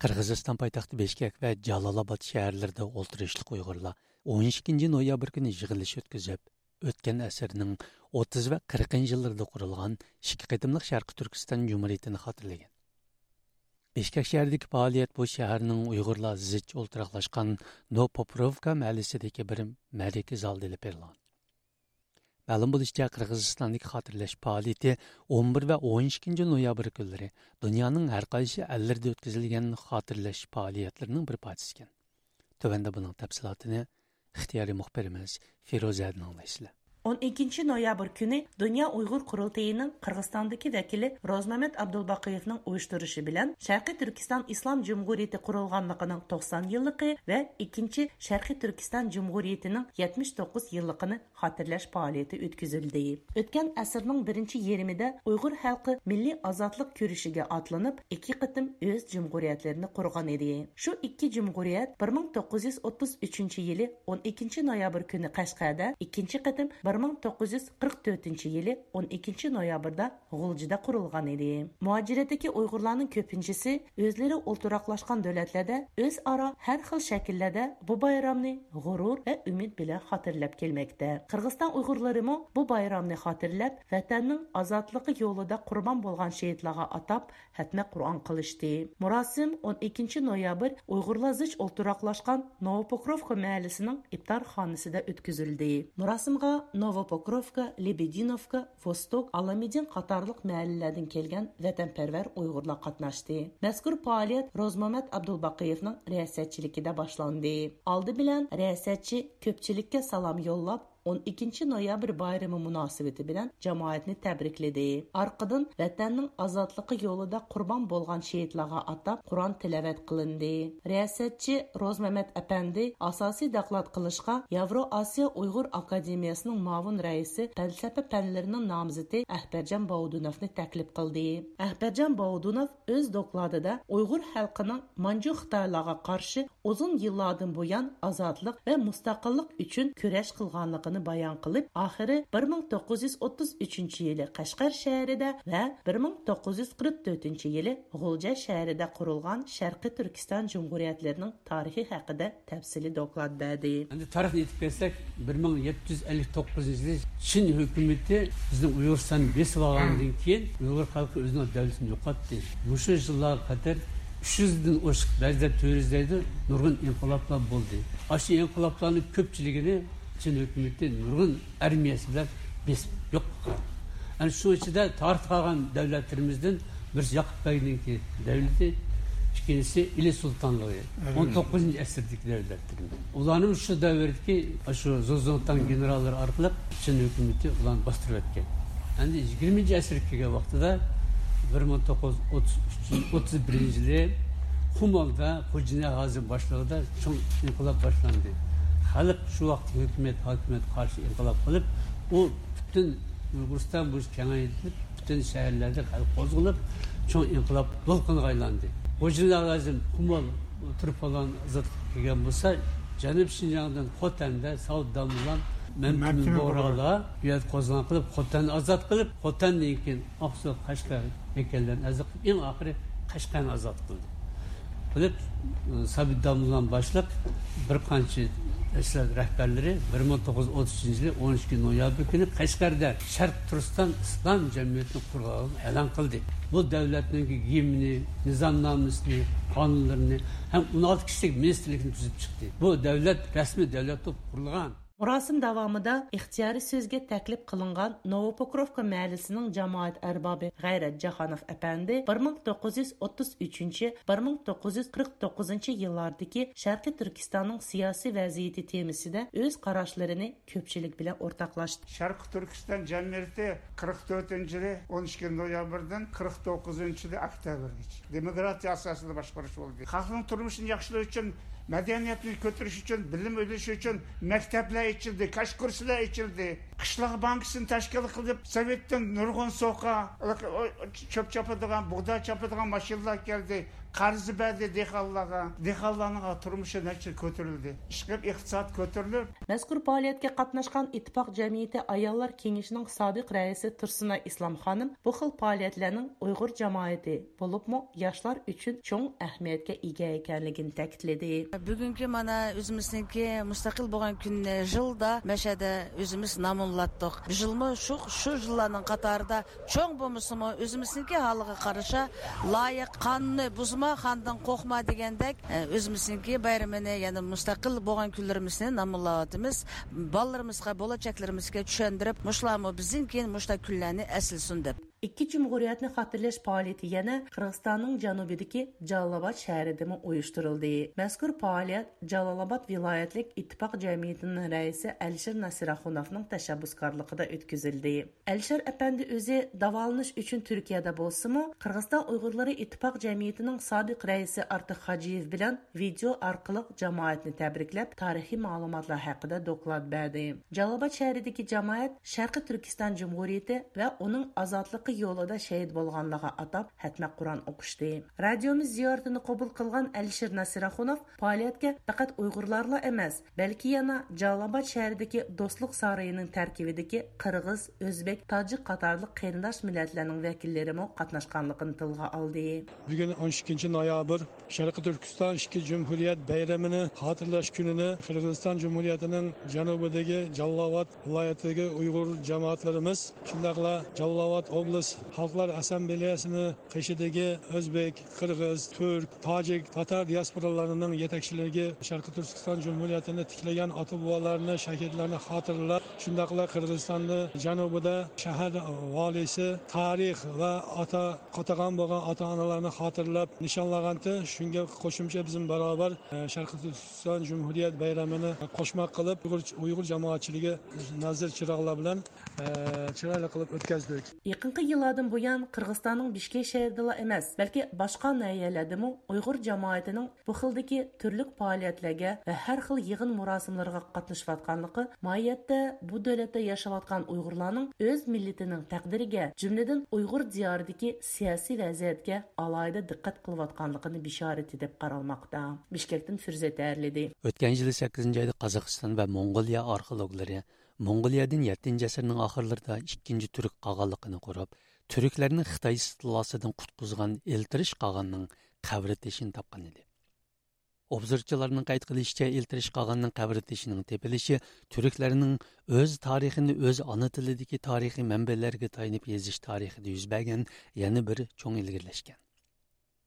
قىرغىزىستان پايتەختى بىشكەك ۋە جالالاباد شەھەرلىرىدە ئولتۇرۇشلۇق ئۇيغۇرلار ئون ئىككىنچى نويابىر كۈنى يىغىلىش ئۆتكۈزۈپ، ئۆتكەن ئەسىرنىڭ ئوتتۇز ۋە قىرىقىنچى يىللىرىدا قۇرۇلغان ئىككى قېتىملىق شەرقىي تۈركىستان جۇمھۇرىيىتىنى خاتىرىلىگەن. بىشكەك شەھىرىدىكى پائالىيەت بۇ شەھەرنىڭ ئۇيغۇرلار زىچ ئولتۇراقلاشقان نوپوپوروۋكا مەھەللىسىدىكى بىر مەرىكە زالىدا ئېلىپ بېرىلغان. مەلۇم بولۇشىچە، قىرغىزىستاندىكى خاتىرىلەش پائالىيىتى ئون بىر ۋە ئون ئىككىنچى نويابىر كۈنلىرى دۇنيانىڭ ھەر قايسى ئەللىرىدە ئۆتكۈزۈلگەن خاتىرىلەش پائالىيەتلىرىنىڭ بىر پارچىسى ئىكەن. تۆۋەندە بۇنىڭ تەپسىلاتىنى ئىختىيارىي مۇخبىرىمىز فىرۇزەدىن ئاڭلايسىلەر. ئون ئىككىنچى نويابىر كۈنى دۇنيا ئۇيغۇر قۇرۇلتىيىنىڭ قىرغىزىستاندىكى ۋەكىلى روزمەمەت ئابدۇلباقىيېۋنىڭ ئۇيۇشتۇرۇشى بىلەن شەرقىي تۈركىستان ئىسلام جۇمھۇرىيىتى قۇرۇلغانلىقىنىڭ توقسان يىللىقى ۋە ئىككىنچى شەرقىي تۈركىستان جۇمھۇرىيىتىنىڭ يەتمىش توققۇز يىللىقىنى خاتىرىلەش پائالىيىتى ئۆتكۈزۈلدى. ئۆتكەن ئەسىرنىڭ بىرىنچى يېرىمىدە ئۇيغۇر خەلقى مىللىي ئازادلىق كۈرىشىگە ئاتلىنىپ، ئىككى قېتىم ئۆز جۇمھۇرىيەتلىرىنى قۇرغان ئىدى. شۇ ئىككى جۇمھۇرىيەت بىر مىڭ توققۇز يۈز ئوتتۇز ئۈچىنچى يىلى ئون ئىككىنچى نويابىر كۈنى قەشقەردە، ئىككىنچى قېتىم بىر مىڭ توققۇز يۈز قىرىق تۆتىنچى يىلى ئون ئىككىنچى نويابىردا غۇلجىدا قۇرۇلغان ئىدى. مۇھاجىرەتتىكى ئۇيغۇرلارنىڭ كۆپىنچىسى ئۆزلىرى ئولتۇراقلاشقان دۆلەتلەردە ئۆزئارا ھەر خىل شەكىللەردە بۇ بايرامنى غۇرۇر ۋە ئۈمىد بىلەن خاتىرىلەپ كەلمەكتە. قىرغىزىستان ئۇيغۇرلىرىمۇ بۇ بايرامنى خاتىرىلەپ، ۋەتەننىڭ ئازادلىقى يولىدا قۇربان بولغان شېھىتلارغا ئاتاپ ھەتمە قۇرئان قىلىشتى. مۇراسىم ئون ئىككىنچى نويابىر ئۇيغۇرلار زىچ ئولتۇراقلاشقان نوۋوپوكروفكا مەھەللىسىنىڭ ئىپتارخانىسىدا ئۆتكۈزۈلدى. مۇراسىمغا نوۋوپوكروفكا، لېبېدىنوفكا، ۋوستوك، ئاللامىدىن قاتارلىق مەھەللىلەردىن كەلگەن ۋەتەنپەرۋەر ئۇيغۇرلار قاتناشتى. مەزكۇر پائالىيەت روزمامەت ئابدۇلباقىيېۋنىڭ رىياسەتچىلىكىدە باشلاندى. ئالدى بىلەن رىياسەتچى كۆپچىلىككە سالام يوللاپ، ئون ئىككىنچى نويابىر بايرىمى مۇناسىۋىتى بىلەن جامائەتنى تەبرىكلىدى. ئارقىدىن ۋەتەننىڭ ئازادلىقى يولىدا قۇربان بولغان شېھىتلارغا ئاتاپ قۇرئان تىلاۋەت قىلىندى. رىياسەتچى روزمەمەت ئەپەندى ئاساسىي دوكلات قىلىشقا ياۋرو ئاسىيا ئۇيغۇر ئاكادېمىيەسىنىڭ مۇئاۋىن رەئىسى، پەلسەپە پەنلىرىنىڭ نامزىتى ئەخبەرجان باۋۇدۇنوفنى تەكلىپ قىلدى. ئەخبەرجان باۋۇدۇنوف ئۆز دوكلاتىدا ئۇيغۇر خەلقىنىڭ مانجۇ خىتايلارغا قارشى ئۇزۇن يىللاردىن بۇيان ئازادلىق ۋە مۇستەقىللىق ئۈچۈن كۈرەش قىلغانلىقىنى بايان قىلىپ، ئاخىرى بىر مىڭ توققۇز يۈز ئوتتۇز ئۈچىنچى يىلى قەشقەر شەھىرىدە ۋە بىر مىڭ توققۇز يۈز قىرىق تۆتىنچى يىلى غۇلجا شەھىرىدە قۇرۇلغان شەرقىي تۈركىستان جۇمھۇرىيەتلىرىنىڭ تارىخى ھەققىدە تەپسىلىي دوكلات بەردى. ئەمدى تارىخنى ئېيتىپ كەتسەك، بىر مىڭ يەتتە يۈز ئەللىك توققۇزىنچى يىلى چىن ھۆكۈمىتى بىزنىڭ ئۇيغۇرىستاننى بېسىپ ئالغاندىن كېيىن، ئۇيغۇر خەلقى ئۆزىنىڭ دۆلىتىنى يوقاتتى. مۇشۇ يىللارغا قەدەر ئۈچ يۈزدىن ئوشۇق، بەزىلەر تۆت يۈز دەيدۇ، نۇرغۇن ئىنقىلابلار بولدى. ئاشۇ ئىنقىلابلارنىڭ كۆپچىلىكىنى چىن ھۆكۈمىتى نۇرغۇن ئارمىيەسى بىلەن بېسىپ يوق قىلغان. ئەنە شۇنىڭ ئىچىدە تارىختا قالغان دۆلەتلىرىمىزدىن بىرسى ياقۇپ بەگنىڭكى دەۋلىتى، ئىككىنچىسى ئىلى سۇلتانلىقى، ئون توققۇزىنچى ئەسىردىكى دۆلەتلىرىمىز. ئۇلارنىڭ شۇ دەۋردىكى شۇ زۇڭتۇڭ گېنېراللىرى ئارقىلىق چىن ھۆكۈمىتى ئۇلارنى باستۇرۇۋەتكەن. ئەمدى يىگىرمىنچى ئەسىرگە كەلگەن ۋاقتىدا، بىر مىڭ توققۇز يۈز ئوتتۇز بىرىنچى يىلى قۇمۇلدا خوجا نىياز ھازىم باشلىقىدا چوڭ ئىنقىلاب باشلاندى. خەلق شۇ ۋاقىتتىكى ھۆكۈمەت، ھاكىمىيەتكە قارشى ئىنقىلاب قىلىپ، ئۇ پۈتۈن ئۇيغۇرىستان بويىچە كېڭەيتىلىپ، پۈتۈن شەھەرلەردە خەلق قوزغىلىپ، چوڭ ئىنقىلاب دولقۇنىغا ئايلاندى. خوجا نىياز ھازىم قۇمۇل تۇرپانلارنى ئازادلىققا كەلگەن بولسا، جەنۇبىي شىنجاڭدىن خوتەندە ساۋۇت داموللام، مەمتىمىن مەمتىمىن بۇغرالار بۇ يەردە قوزغىلاڭ قىلىپ، خوتەننى ئازاد قىلىپ، خوتەندىن كېيىن ئاقسۇ، قەشقەر، مەككەللەرنى ئازاد قىلىپ، ئەڭ ئاخىرى قەشقەرنى ئازاد قىلدى. قىلىپ، سابىت داموللام باشلىق بىر قانچە تەشكىلات رەھبەرلىرى بىر مىڭ توققۇز يۈز ئوتتۇز ئۈچىنچى يىلى ئون ئىككى نويابىر كۈنى قەشقەردە شەرقىي تۈركىستان ئىسلام جەمئىيىتىنى قۇرغانلىقىنى ئېلان قىلدى. بۇ دۆلەتنىڭ گىمنى، نىزامنامىسىنى، قانۇنلىرىنى ھەم ئون ئالتە كىشىلىك مىنىستىرلىكنى تۈزۈپ چىقتى. بۇ دۆلەت رەسمىي دۆلەت بولۇپ قۇرۇلغان. مۇراسىم داۋامىدا ئىختىيارىي سۆزگە تەكلىپ قىلىنغان نوۋوپوكروفكا مەھەللىسىنىڭ جامائەت ئەربابى غەيرەت جاھانوف ئەپەندى بىر مىڭ توققۇز يۈز ئوتتۇز ئۈچىنچى، بىر مىڭ توققۇز يۈز قىرىق توققۇزىنچى يىللاردىكى شەرقىي تۈركىستاننىڭ سىياسىي ۋەزىيىتى تېمىسىدا ئۆز قاراشلىرىنى كۆپچىلىك بىلەن ئورتاقلاشتى. شەرقىي تۈركىستان جەمئىيىتى قىرىق تۆتىنچى يىلى ئون ئىككىنچى نويابىردىن قىرىق توققۇزىنچى يىلى ئۆكتەبىرگىچە دېموكراتىيە ئاساسىدا باشقۇرۇش بولدى. خەلقنىڭ تۇرمۇشىنى ياخشىلاش ئۈچۈن، مەدەنىيەتنى كۆتۈرۈش ئۈچۈن، بىلىم ئېلىش ئۈچۈن مەكتەپلەر ئېچىلدى، كاش كۇرسلار ئېچىلدى. قىشلاق بانكىسىنى تەشكىل قىلىپ، سوۋېتتىن نۇرغۇن سوقا، چۆپ چاپىدىغان، بۇغداي چاپىدىغان ماشىنىلار كەلدى. قەرز بەردى دېھقانلارغا. دېھقانلارنىڭ تۇرمۇشى نەچچە كۆتۈرۈلدى. ئىشقىلىپ ئىقتىساد كۆتۈرۈلۈپ، مەزكۇر پائالىيەتكە قاتناشقان ئىتتىپاق جەمئىيىتى ئاياللار كېڭىشىنىڭ سابىق رەئىسى تۇرسۇنئاي ئىسلام خانىم بۇ خىل پائالىيەتلەرنىڭ ئۇيغۇر جامائىتى، بولۇپمۇ ياشلار ئۈچۈن چوڭ ئەھمىيەتكە ئىگە ئىكەنلىكىنى تەكىتلىدى. بۈگۈنكى مانا ئۆزىمىزنىڭكى مۇستەقىل بولغان كۈنىنى يىلدا مەشەدە ئۆزىمىز نامۇنلاتتۇق. بۇ يىلمۇ شۇ، شۇ يىللارنىڭ قاتارىدا چوڭ بولمىسىمۇ، ئۆزىمىزنىڭكى ھالىغا قارىشا لايىق، قانۇننى بۇزما، خاندىن قورقما دېگەندەك، ئە، ئۆزىمىزنىڭكى بايرىمىنى، يەنى مۇستەقىل بولغان كۈنلىرىمىزنى نامۇنلاۋاتىمىز. بالىلىرىمىزغا، بولاچەكلىرىمىزگە چۈشەندۈرۈپ، مۇشۇلارمۇ بىزدىن كېيىن مۇشۇنداق كۈنلەرنى ئەسلىسۇن دەپ. ئىككى جۇمھۇرىيەتنى خاتىرىلەش پائالىيىتى يەنە قىرغىزىستاننىڭ جەنۇبىدىكى جالالاباد شەھىرىدىمۇ ئۇيۇشتۇرۇلدى. مەزكۇر پائالىيەت جالالاباد ۋىلايەتلىك ئىتتىپاق جەمئىيىتىنىڭ رەئىسى ئەلىشىر ناسىراخۇنوفنىڭ تەشەببۇسكارلىقىدا ئۆتكۈزۈلدى. ئەلىشىر ئەپەندى ئۆزى داۋالىنىش ئۈچۈن تۈركىيەدە بولسىمۇ، قىرغىزىستان ئۇيغۇرلىرى ئىتتىپاق جەمئىيىتىنىڭ سابىق رەئىسى ئارتىق خاجىيېۋ بىلەن ۋىدېئو ئارقىلىق جامائەتنى تەبرىكلەپ، تارىخىي مەلۇماتلار ھەققىدە دوكلات بەردى. جالالاباد شەھىرىدىكى جامائەت شەرقىي تۈركىستان جۇمھۇرىيىتى ۋە ئۇنىڭ ئازادلىقى يولىدا شېھىت بولغانلارغا ئاتاپ ھەتمە قۇرئان ئوقۇشتى. رادىيومىز زىيارىتىنى قوبۇل قىلغان ئەلىشىر نەسىر ئاخۇنوف پائالىيەتكە پەقەت ئۇيغۇرلارلا ئەمەس، بەلكى يەنە جالالاباد شەھىرىدىكى دوستلۇق سارىيىنىڭ تەركىبىدىكى قىرغىز، ئۆزبېك، تاجىك قاتارلىق قېرىنداش مىللەتلەرنىڭ ۋەكىللىرىمۇ قاتناشقانلىقىنى تىلغا ئالدى. بۈگۈن ئون ئىككىنچى نويابىر، شەرقىي تۈركىستان ئىككى جۇمھۇرىيەت بايرىمىنى خاتىرىلەش كۈنىنى قىرغىزىستان جۇمھۇرىيىتىنىڭ جەنۇبىدىكى جالالاباد ۋىلايىتىدىكى ئۇيغۇر جامائەتلىرىمىز، شۇنداقلا جالالاباد ئوبلاست خەلقلەر ئاسسامبلېيەسىنىڭ قېشىدىكى ئۆزبېك، قىرغىز، تۈرك، تاجىك، تاتار دىياسپورالىرىنىڭ يېتەكچىلىرىگە شەرقىي تۈركىستان جۇمھۇرىيىتىنى تىكلىگەن ئاتا-بوۋىلارنى، شەھىدلەرنى خاتىرىلەپ، شۇنداقلا قىرغىزىستاندا جەنۇبىدا شەھەر ۋالىيسى تارىخ ۋە ئاتا قاتىغان بولغان ئاتا-ئانىلارنى خاتىرىلەپ نىشانلىغانتى. شۇنىڭغا قوشۇمچە بىزمۇ باراۋەر، ئە، شەرقىي تۈركىستان جۇمھۇرىيەت بايرىمىنى قوشماق قىلىپ، ئۇيغۇر، ئۇيغۇر جامائەتچىلىكى نازىر چىراغلار بىلەن، ئە، چىرايلىق قىلىپ ئۆتكەزدۇق. يېقىنقى يىللاردىن بۇيان، قىرغىزىستاننىڭ بىشكېك شەھىرىدىلا ئەمەس، بەلكى باشقا ناھىيەلەردىمۇ ئۇيغۇر جامائىتىنىڭ بۇ خىلدىكى تۈرلۈك پائالىيەتلەرگە ۋە ھەر خىل يىغىن مۇراسىملىرىغا قاتنىشىۋاتقانلىقى ماھىيەتتە بۇ دۆلەتتە ياشاۋاتقان ئۇيغۇرلارنىڭ ئۆز مىللىتىنىڭ تەقدىرىگە، جۈملىدىن ئۇيغۇر دىيارىدىكى سىياسىي ۋەزىيەتكە ئالاھىدە دىققەت قىلىۋاتقانلىقىنىڭ بېشارىتى دەپ قارالماقتا. بىشكەكتىن فىرزەت ھەرلىدى. ئۆتكەن يىلى سەككىزىنچى ئايدا قازاقىستان ۋە موڭغۇلىيە ئارخېئولوگلىرى موڭغۇلىيەدىن يەتتىنچى ئەسىرنىڭ ئاخىرلىرىدا ئىككىنچى تۈرك قاغانلىقىنى قۇرۇپ، تۈركلەرنى خىتاي ئىستىلاسىدىن قۇتقۇزغان ئېلتىرىش قاغاننىڭ قەبرە تېشىنى تاپقان ئىدى. ئوبزورچىلارنىڭ قەيت قىلىشىچە، ئېلتىرىش قاغاننىڭ قەبرە تېشىنىڭ تېپىلىشى تۈركلەرنىڭ ئۆز تارىخىنى ئۆز ئانا تىلىدىكى تارىخىي مەنبەلەرگە تايىنىپ يېزىش تارىخىدا يۈز بەرگەن يەنە بىر چوڭ ئىلگىرىلەش ئىكەن.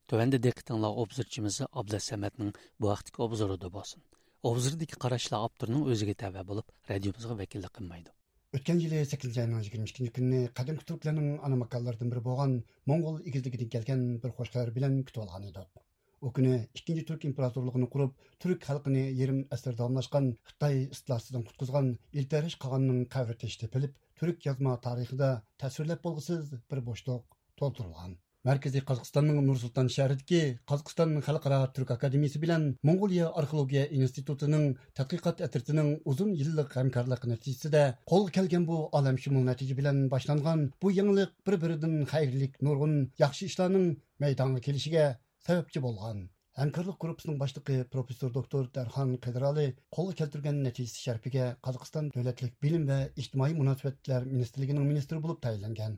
تۆۋەندە دىققىتىڭلار ئوبزورچىمىز ئابلەتسەمەتنىڭ بۇ ھەقتىكى ئوبزورىدا بولسۇن. ئوبزوردىكى قاراشلار ئاپتورنىڭ ئۆزىگە تەۋە بولۇپ، رادىيومىزغا ۋەكىللىك قىلمايدۇ. ئۆتكەن يىلى سەككىزىنچى ئاينىڭ يىگىرمە ئىككىنچى كۈنى قەدىمكى تۈركلەرنىڭ ئانا ماكانلىرىدىن بىرى بولغان موڭغۇل ئېگىزلىكىدىن كەلگەن بىر خۇش خەۋەر بىلەن كۈتۈۋالغان ئىدۇق. ئۇ كۈنى ئىككىنچى تۈرك ئىمپېراتورلۇقىنى قۇرۇپ، تۈرك خەلقىنى يېرىم ئەسىر داۋاملاشقان خىتاي ئىستىلاسىدىن قۇتقۇزغان ئېلتەرىش قاغاننىڭ قەبرە تېشى تېپىلىپ، تۈرك يازما تارىخىدا تەسۋىرلەپ بولغۇسىز بىر بوشلۇق تولدۇرۇلغان. مەركىزىي قازاقىستاننىڭ نۇر سۇلتان شەھىرىدىكى قازاقىستان خەلقئارا تۈرك ئاكادېمىيىسى بىلەن موڭغۇلىيە ئارخېئولوگىيە ئىنستىتۇتىنىڭ تەتقىقات ئەترىتىنىڭ ئۇزۇن يىللىق ھەمكارلىقى نەتىجىسىدە قولغا كەلگەن بۇ ئالەمشۇمۇل نەتىجە بىلەن باشلانغان بۇ يېڭىلىق بىر-بىرىدىن خەيرلىك نۇرغۇن ياخشى ئىشلارنىڭ مەيدانغا كېلىشىگە سەۋەبچى بولغان. ھەمكارلىق گۇرۇپپىسىنىڭ باشلىقى پروفېسسور دوكتور دەرخان قىدرالى قولغا كەلتۈرگەن نەتىجىسى شەرىپىگە قازاقىستان دۆلەتلىك بىلىم ۋە ئىجتىمائىي مۇناسىۋەتلەر مىنىستىرلىكىنىڭ مىنىستىرى بولۇپ تەيىنلەنگەن.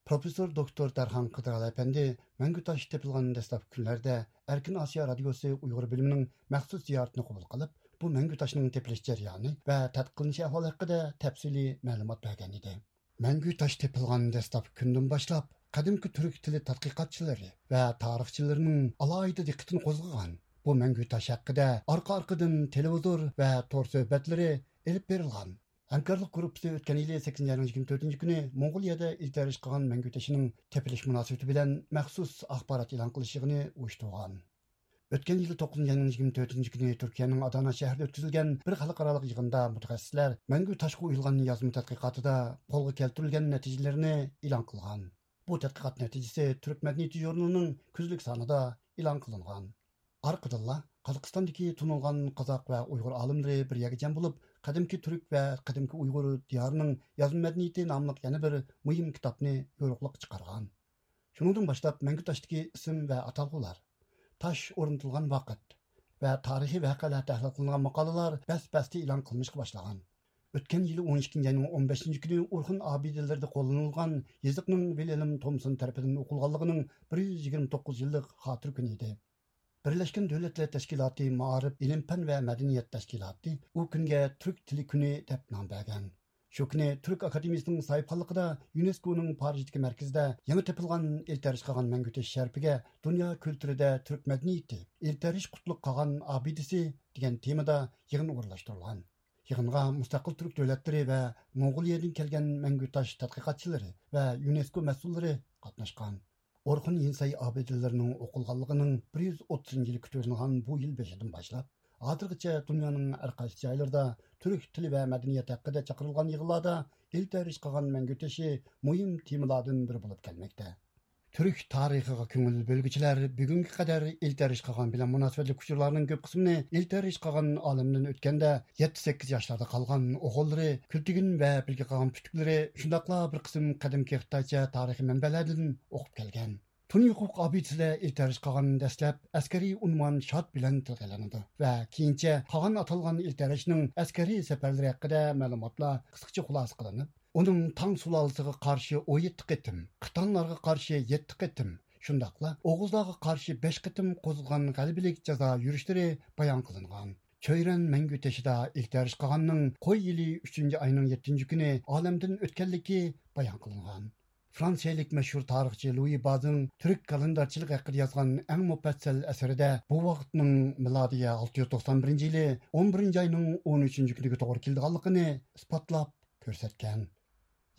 پروفېسسور دوكتور دەرخان قىدرالى ئەپەندى مەڭگۈ تاش تېپىلغان دەسلەپكى كۈنلەردە ئەركىن ئاسىيا رادىيوسى ئۇيغۇر بۆلۈمىنىڭ مەخسۇس زىيارىتىنى قوبۇل قىلىپ، بۇ مەڭگۈ تاشنىڭ تېپىلىش جەريانى ۋە تەتقىق قىلىنىش ئەھۋالى ھەققىدە تەپسىلىي مەلۇمات بەرگەن ئىدى. مەڭگۈ تاش تېپىلغان دەسلەپكى كۈندىن باشلاپ، قەدىمكى تۈرك تىلى تەتقىقاتچىلىرى ۋە تارىخچىلىرىنىڭ ئالاھىدە دىققىتىنى قوزغىغان بۇ مەڭگۈ تاش ھەققىدە ئارقا-ئارقىدىن تېلېۋىزور ۋە تور سۆھبەتلىرى ئېلىپ بېرىلغان. ھەمكارلىق گۇرۇپپىسى ئۆتكەن يىلى سەككىزىنچى ئاينىڭ يىگىرمە تۆتىنچى كۈنى موڭغۇلىيەدە ئېلتەرىش قىلغان مەڭگۈ تېشىنىڭ تېپىلىش مۇناسىۋىتى بىلەن مەخسۇس ئاخبارات ئېلان قىلىش يىغىنى ئۇيۇشتۇرغان. ئۆتكەن يىلى توققۇزىنچى ئاينىڭ يىگىرمە تۆتىنچى كۈنى تۈركىيەنىڭ ئادانا شەھىرىدە ئۆتكۈزۈلگەن بىر خەلقئارالىق يىغىندا مۇتەخەسسىسلەر مەڭگۈ تاشقا ئويۇلغان يازما تەتقىقاتىدا قولغا كەلتۈرۈلگەن نەتىجىلىرىنى ئېلان قىلغان. بۇ تەتقىقات نەتىجىسى تۈرك مەدەنىيىتى ژۇرنىلىنىڭ كۈزلۈك سانىدا ئېلان قىلىنغان. ئارقىدىنلا قازاقىستاندىكى تونۇلغان قازاق ۋە ئۇيغۇر ئالىملىرى بىر يەرگە جەم بولۇپ، قەدىمكى تۈرك ۋە قەدىمكى ئۇيغۇر دىيارىنىڭ يازما مەدەنىيىتى ناملىق يەنە بىر مۇھىم كىتابنى يورۇقلۇققا چىقارغان. شۇنىڭدىن باشلاپ مەڭگۈ تاشتىكى ئىسىم ۋە ئاتالغۇلار، تاش ئورنىتىلغان ۋاقىت ۋە تارىخىي ۋەقەلەر تەھلىل قىلىنغان ماقالىلەر بەس-بەستە ئېلان قىلىنىشقا باشلىغان. ئۆتكەن يىلى ئون ئىككىنچى ئاينىڭ ئون بەشىنچى كۈنى ئورخۇن ئابىدىلىرىدە قوللىنىلغان يېزىقنىڭ ۋىلھېلم تومسون تەرىپىدىن ئوقۇلغانلىقىنىڭ بىر يۈز يىگىرمە توققۇز يىللىق خاتىرە كۈنى ئىدى. بىرلەشكەن دۆلەتلەر تەشكىلاتى مائارىپ، ئىلىم-پەن ۋە مەدەنىيەت تەشكىلاتى ئۇ كۈنگە تۈرك تىلى كۈنى دەپ نام بەرگەن. شۇ كۈنى تۈرك ئاكادېمىيىسىنىڭ ساھىبخانلىقىدا يۇنېسكونىڭ پارىژدىكى مەركىزىدە يېڭى تېپىلغان ئېلتەرىش قىلغان مەڭگۈ تېشى شەرىپىگە دۇنيا كۈلتۈرىدە تۈرك مەدەنىيىتى، ئېلتەرىش قۇتلۇق قاغان ئابىدىسى دېگەن تېمىدا يىغىن ئورۇنلاشتۇرۇلغان. يىغىنغا مۇستەقىل تۈرك دۆلەتلىرى ۋە موڭغۇلىيەدىن كەلگەن مەڭگۈ تاش تەتقىقاتچىلىرى ۋە يۇنېسكو مەسئۇللىرى قاتناشقان. ئورخۇن يىنسەي ئابىدىلىرىنىڭ ئوقۇلغانلىقىنىڭ بىر يۈز ئوتتۇزىنچى يىلى كۈتۈۋېلىنغان بۇ يىل بېشىدىن باشلاپ، ھازىرغىچە دۇنيانىڭ ھەر قايسى جايلىرىدا تۈرك تىلى ۋە مەدەنىيەت ھەققىدە چاقىرىلغان يىغىنلاردا ئېلتەرىش قىلغان مەڭگۈ تېشى مۇھىم تېمىلاردىن بىرى بولۇپ كەلمەكتە. تۈرك تارىخىغا كۆڭۈل بۆلگۈچىلەر بۈگۈنگە قەدەر ئىلتەرىش قاغان بىلەن مۇناسىۋەتلىك ئۇچۇرلارنىڭ كۆپ قىسمىنى ئىلتەرىش قاغان ئالەمدىن ئۆتكەندە يەتتە سەككىز ياشلاردا قالغان ئوغۇللىرى كۈلتىگىن ۋە بىلگە قاغان پۈتۈكلىرى، شۇنداقلا بىر قىسىم قەدىمكى خىتايچە تارىخىي مەنبەلەردىن ئوقۇپ كەلگەن. تۇنى ھوقۇق ئابىدىسىدە ئىلتەرىش قاغان دەسلەپ ئەسكەرىي ئۇنۋان شاد بىلەن تىلغا ئېلىنىدۇ ۋە كېيىنچە قاغان ئاتالغان ئىلتەرىشنىڭ ئەسكەرىي سەپەرلىرى ھەققىدە مەلۇماتلار قىسقىچە خۇلاسە قىلىنىپ، ئۇنىڭ تاڭ سۇلالىسىغا قارشى ئون يەتتە قېتىم، قىتانلارغا قارشى يەتتە قېتىم، شۇنداقلا ئوغۇزلارغا قارشى بەش قېتىم قوزغىغان غەلىبىلىك جازا يۈرۈشلىرى بايان قىلىنغان. چۆيرەن مەڭگۈ تېشىدا ئىلتەرىش قاغاننىڭ قوي يىلى ئۈچىنچى ئاينىڭ يەتتىنچى كۈنى ئالەمدىن ئۆتكەنلىكى بايان قىلىنغان. فرانسىيەلىك مەشھۇر تارىخچى لۇيى بازىڭ تۈرك كالېندارچىلىقى ھەققىدە يازغان ئەڭ مۇپەسسەل ئەسىرىدە بۇ ۋاقىتنىڭ مىلادىيە ئالتە يۈز توقسان بىرىنچى يىلى ئون بىرىنچى ئاينىڭ ئون ئۈچىنچى كۈنىگە توغرا كېلىدىغانلىقىنى ئىسپاتلاپ كۆرسەتكەن.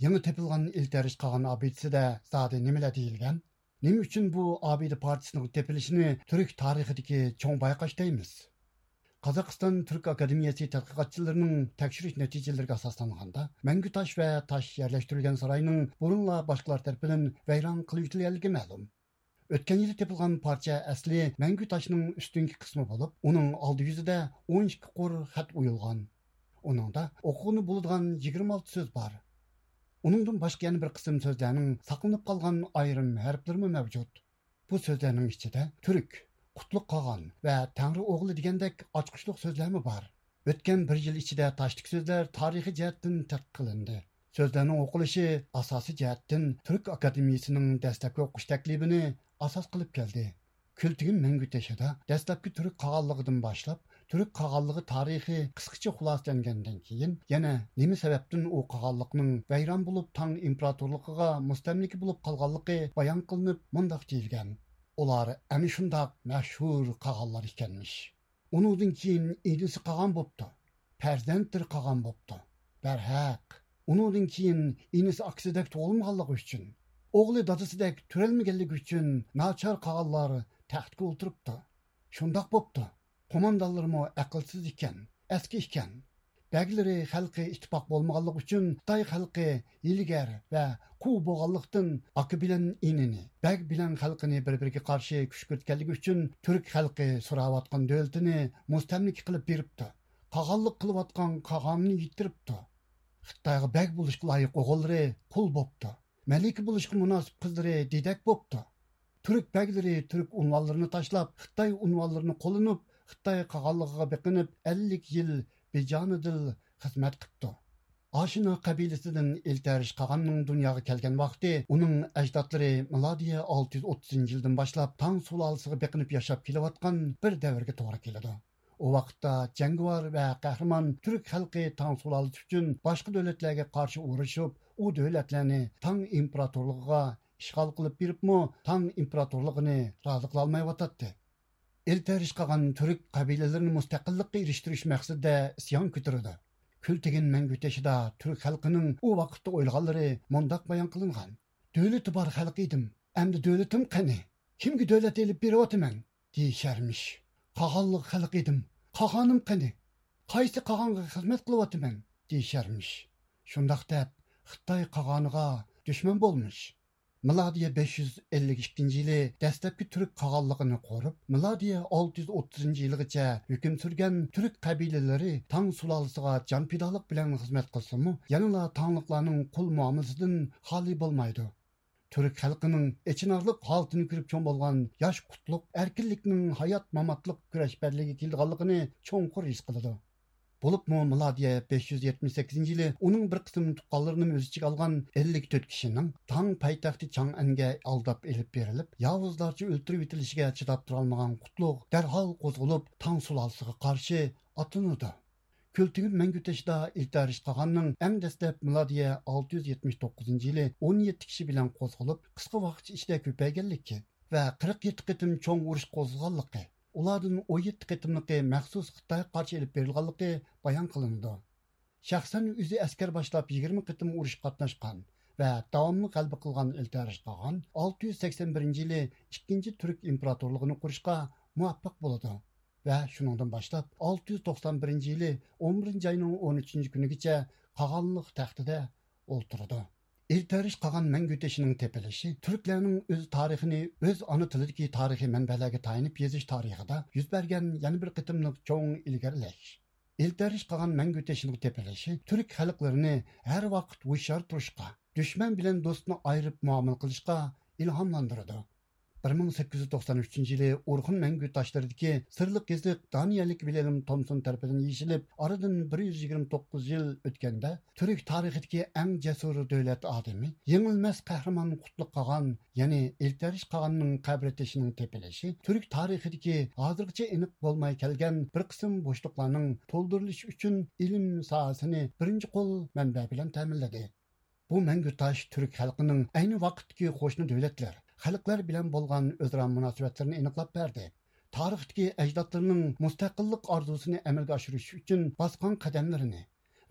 يېڭى تېپىلغان ئىلتەرىش قاغان ئابىدىسىدە زادى نېمىلەر دېيىلگەن؟ نېمە ئۈچۈن بۇ ئابىدە پارچىسىنىڭ تېپىلىشىنى تۈرك تارىخىدىكى چوڭ بايقاش دەيمىز؟ قازاقىستان تۈرك ئاكادېمىيەسى تەتقىقاتچىلىرىنىڭ تەكشۈرۈش نەتىجىلىرىگە ئاساسلانغاندا، مەڭگۈ تاش ۋە تاش يەرلەشتۈرۈلگەن ساراينىڭ بۇرۇنلا باشقىلار تەرىپىدىن ۋەيران قىلىۋېتىلگەنلىكى مەلۇم. ئۆتكەن يىلى تېپىلغان پارچە ئەسلى مەڭگۈ تاشنىڭ ئۈستۈنكى قىسمى بولۇپ، ئۇنىڭ ئالدى يۈزىدە ئون ئىككى قۇر خەت ئويۇلغان. ئۇنىڭدا ئوقۇغىلى بولىدىغان يىگىرمە ئالتە سۆز بار. ئۇنىڭدىن باشقا يەنە بىر قىسىم سۆزلەرنىڭ ساقلىنىپ قالغان ئايرىم ھەرپلىرىمۇ مەۋجۇت. بۇ سۆزلەرنىڭ ئىچىدە تۈرك، قۇتلۇق قاغان ۋە تەڭرى ئوغلى دېگەندەك ئاچقۇچلۇق سۆزلەرمۇ بار. ئۆتكەن بىر يىل ئىچىدە تاشتىكى سۆزلەر تارىخىي جەھەتتىن تەتقىق قىلىندى. سۆزلەرنىڭ ئوقۇلۇشى ئاساسىي جەھەتتىن تۈرك ئاكادېمىيىسىنىڭ دەسلەپكى ئوقۇش تەكلىپىنى ئاساس قىلىپ كەلدى. كۈلتىگىن مەڭگۈ تېشىدا دەسلەپكى تۈرك قاغانلىقىدىن باشلاپ، تۈرك قاغانلىقى تارىخى قىسقىچە خۇلاسىلەنگەندىن كېيىن، يەنە نېمە سەۋەبتىن ئۇ قاغانلىقنىڭ ۋەيران بولۇپ، تاڭ ئىمپېراتورلۇقىغا مۇستەملىكە بولۇپ قالغانلىقى بايان قىلىنىپ، مۇنداق دېيىلگەن: ئۇلار ئەنە شۇنداق مەشھۇر قاغانلار ئىكەنمىش. ئۇنىڭدىن كېيىن ئىنىسى قاغان بوپتۇ، پەرزەنتلىرى قاغان بوپتۇ. بەرھەق، ئۇنىڭدىن كېيىن ئىنىسى ئاكىسىدەك تۇغۇلمىغانلىقى ئۈچۈن، ئوغلى دادىسىدەك تۆرەلمىگەنلىكى ئۈچۈن ناچار قاغانلار تەختكە ئولتۇرۇپتۇ. شۇنداق بوپتۇ. قوماندانلىرىمۇ ئەقىلسىز ئىكەن، ئەسكى ئىكەن. بەگلىرى خەلقى ئىتتىپاق بولمىغانلىقى ئۈچۈن خىتاي خەلقى ھىيلىگەر ۋە قۇۋ بولغانلىقتىن، ئاكا بىلەن ئىنىنى، بەگ بىلەن خەلقىنى بىر-بىرىگە قارشى كۈشكۈرتكەنلىكى ئۈچۈن تۈرك خەلقى سوراۋاتقان دۆلىتىنى مۇستەملىكە قىلىپ بېرىپتۇ. قاغانلىق قىلىۋاتقان قاغانىنى يىتتۈرۈپتۇ. خىتايغا بەگ بولۇشقا لايىق ئوغۇللىرى قۇل بوپتۇ. مەلىكە بولۇشقا مۇناسىپ قىزلىرى دېدەك بوپتۇ. تۈرك بەگلىرى تۈرك ئۇنۋانلىرىنى تاشلاپ، خىتاي ئۇنۋانلىرىنى قوللىنىپ، خىتاي قاغانلىقىغا بېقىنىپ، ئەللىك يىل بىجانىدىل خىزمەت قىپتۇ. ئاشىنا قەبىلىسىدىن ئىلتەرىش قاغاننىڭ دۇنياغا كەلگەن ۋاقتى ئۇنىڭ ئەجدادلىرى مىلادىيە ئالتە يۈز ئوتتۇزىنچى يىلدىن باشلاپ تاڭ سۇلالىسىغا بېقىنىپ ياشاپ كېلىۋاتقان بىر دەۋرگە توغرا كېلىدۇ. ئۇ ۋاقىتتا جەڭگىۋار ۋە قەھرىمان تۈرك خەلقى تاڭ سۇلالىسى ئۈچۈن باشقا دۆلەتلەرگە قارشى ئۇرۇشۇپ، ئۇ دۆلەتلەرنى تاڭ ئىمپېراتورلۇقىغا ئىشغال قىلىپ بېرىپمۇ، تاڭ ئىمپېراتورلۇقىنى رازى قىلالمايۋاتاتتى. ئىلتەرىش قاغان تۈرك قەبىلىلىرىنى مۇستەقىللىققا ئېرىشتۈرۈش مەقسىتىدە ئىسيان كۆتۈرىدۇ. كۈلتىگىن مەڭگۈ تېشىدا تۈرك خەلقىنىڭ ئۇ ۋاقىتتا ئويلىغانلىرى مۇنداق بايان قىلىنغان: دۆلىتى بار خەلق ئىدىم، ئەمدى دۆلىتىم قېنى؟ كىمگە دۆلەت ئېلىپ بېرىۋاتىمەن؟ دېيىشەرمىش. قاغانلىق خەلق ئىدىم، قاغانىم قېنى؟ قايسى قاغانغا خىزمەت قىلىۋاتىمەن؟ دېيىشەرمىش. شۇنداق دەپ، خىتاي قاغانىغا دۈشمەن بولمىش. مىلادىيە بەش يۈز ئەللىك ئىككىنچى يىلى دەسلەپكى تۈرك قاغانلىقىنى قۇرۇپ، مىلادىيە ئالتە يۈز ئوتتۇزىنچى يىلغىچە ھۆكۈم سۈرگەن تۈرك قەبىلىلىرى تاڭ سۇلالىسىغا جان پىدالىق بىلەن خىزمەت قىلسىمۇ، يەنىلا تاڭلىقلارنىڭ قۇل مۇئامىلىسىدىن خالىي بولمايدۇ. تۈرك خەلقىنىڭ ئېچىنارلىق ھالىتىنى كۆرۈپ چوڭ بولغان ياش قۇتلۇق ئەركىنلىكنىڭ ھايات-ماماتلىق كۈرەشپەنلىكىگە كېلىدىغانلىقىنى چوڭقۇر ھېس قىلىدۇ. بولۇپمۇ مىلادىيە بەش يۈز يەتمىش سەككىزىنچى يىلى ئۇنىڭ بىر قىسىم تۇغقانلىرىنىمۇ ئۆز ئىچىگە ئالغان ئەللىك تۆت كىشىنىڭ تاڭ پايتەختى چاڭئەنگە ئالداپ ئېلىپ بېرىلىپ، ياۋۇزلارچە ئۆلتۈرۈۋېتىلىشىگە چىداپ تۇرالمىغان قۇتلۇق دەرھال قوزغىلىپ، تاڭ سۇلالىسىغا قارشى ئاتلىنىدۇ. كۈلتۈگۈن مەڭگۈ تېشىدا ئىلتەرىش قاغاننىڭ ئەڭ دەسلەپ مىلادىيە ئالتە يۈز يەتمىش توققۇزىنچى يىلى ئون يەتتە كىشى بىلەن قوزغىلىپ، قىسقا ۋاقىت ئىچىدە كۆپەيگەنلىكى ۋە قىرىق يەتتە قېتىم چوڭ ئۇرۇش قوزغىغانلىقى، ئۇلاردىن ئون يەتتە قېتىملىقى مەخسۇس خىتايغا قارشى ئېلىپ بېرىلغانلىقى بايان قىلىنىدۇ. شەخسەن ئۆزى ئەسكەر باشلاپ يىگىرمە قېتىم ئۇرۇشقا قاتناشقان ۋە داۋاملىق غەلىبە قىلغان ئىلتەرىش قاغان ئالتە يۈز سەكسەن بىرىنچى يىلى ئىككىنچى تۈرك ئىمپېراتورلۇقىنى قۇرۇشقا مۇۋەپپەق بولىدۇ ۋە شۇنىڭدىن باشلاپ ئالتە يۈز توقسان بىرىنچى يىلى ئون بىرىنچى ئاينىڭ ئون ئۈچىنچى كۈنىگىچە قاغانلىق تەختىدە ئولتۇرىدۇ. ئىلتەرىش قاغان مەڭگۈ تېشىنىڭ تېپىلىشى تۈركلەرنىڭ ئۆز تارىخىنى ئۆز ئانا تىلىدىكى تارىخىي مەنبەلەرگە تايىنىپ يېزىش تارىخىدا يۈز بەرگەن يەنە بىر قېتىملىق چوڭ ئىلگىرىلەش. ئىلتەرىش قاغان مەڭگۈ تېشىنىڭ تېپىلىشى تۈرك خەلقلىرىنى ھەر ۋاقىت ھوشيار تۇرۇشقا، دۈشمەن بىلەن دوستنى ئايرىپ مۇئامىلە قىلىشقا ئىلھاملاندۇرىدۇ. بىر مىڭ سەككىز يۈز توقسان ئۈچىنچى يىلى ئورخۇن مەڭگۈ تاشلىرىدىكى سىرلىق يېزىق دانىيەلىك ۋىلھېلم تومسون تەرىپىدىن يېشىلىپ، ئارىدىن بىر يۈز يىگىرمە توققۇز يىل ئۆتكەندە، تۈرك تارىخىدىكى ئەڭ جەسۇر دۆلەت ئادىمى، يېڭىلمەس قەھرىمان قۇتلۇق قاغان، يەنى ئىلتەرىش قاغاننىڭ قەبرە تېشىنىڭ تېپىلىشى تۈرك تارىخىدىكى ھازىرغىچە ئېنىق بولماي كەلگەن بىر قىسىم بوشلۇقلارنىڭ تولدۇرۇلۇشى ئۈچۈن ئىلىم ساھەسىنى بىرىنچى قول مەنبە بىلەن تەمىنلىدى. بۇ مەڭگۈ تاش تۈرك خەلقىنىڭ ئەينى ۋاقىتتىكى قوشنا دۆلەتلەر، خەلقلەر بىلەن بولغان ئۆزئارا مۇناسىۋەتلىرىنى ئېنىقلاپ بەردى. تارىختىكى ئەجدادلىرىنىڭ مۇستەقىللىق ئارزۇسىنى ئەمەلگە ئاشۇرۇش ئۈچۈن باسقان قەدەملىرىنى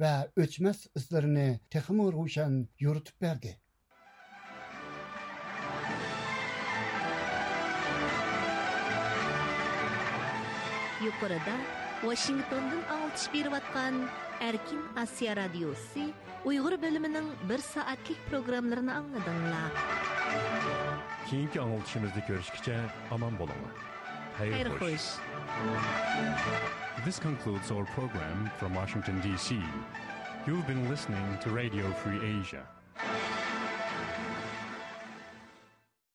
ۋە ئۆچمەس ئىزلىرىنى تېخىمۇ روشەن يورۇتۇپ بەردى. يۇقىرىدا ۋاشىنگتوندىن ئاڭلىتىش بېرىۋاتقان ئەركىن ئاسىيا رادىيوسى ئۇيغۇر بۆلۈمىنىڭ بىر سائەتلىك پروگراممىلىرىنى ئاڭلىدىڭلار. كېيىنكى ئاڭلىتىشىمىزدا كۆرۈشكىچە ئامان بولۇڭلار. خەير خوش. This concludes our program from Washington, D C. You've been listening to Radio Free Asia.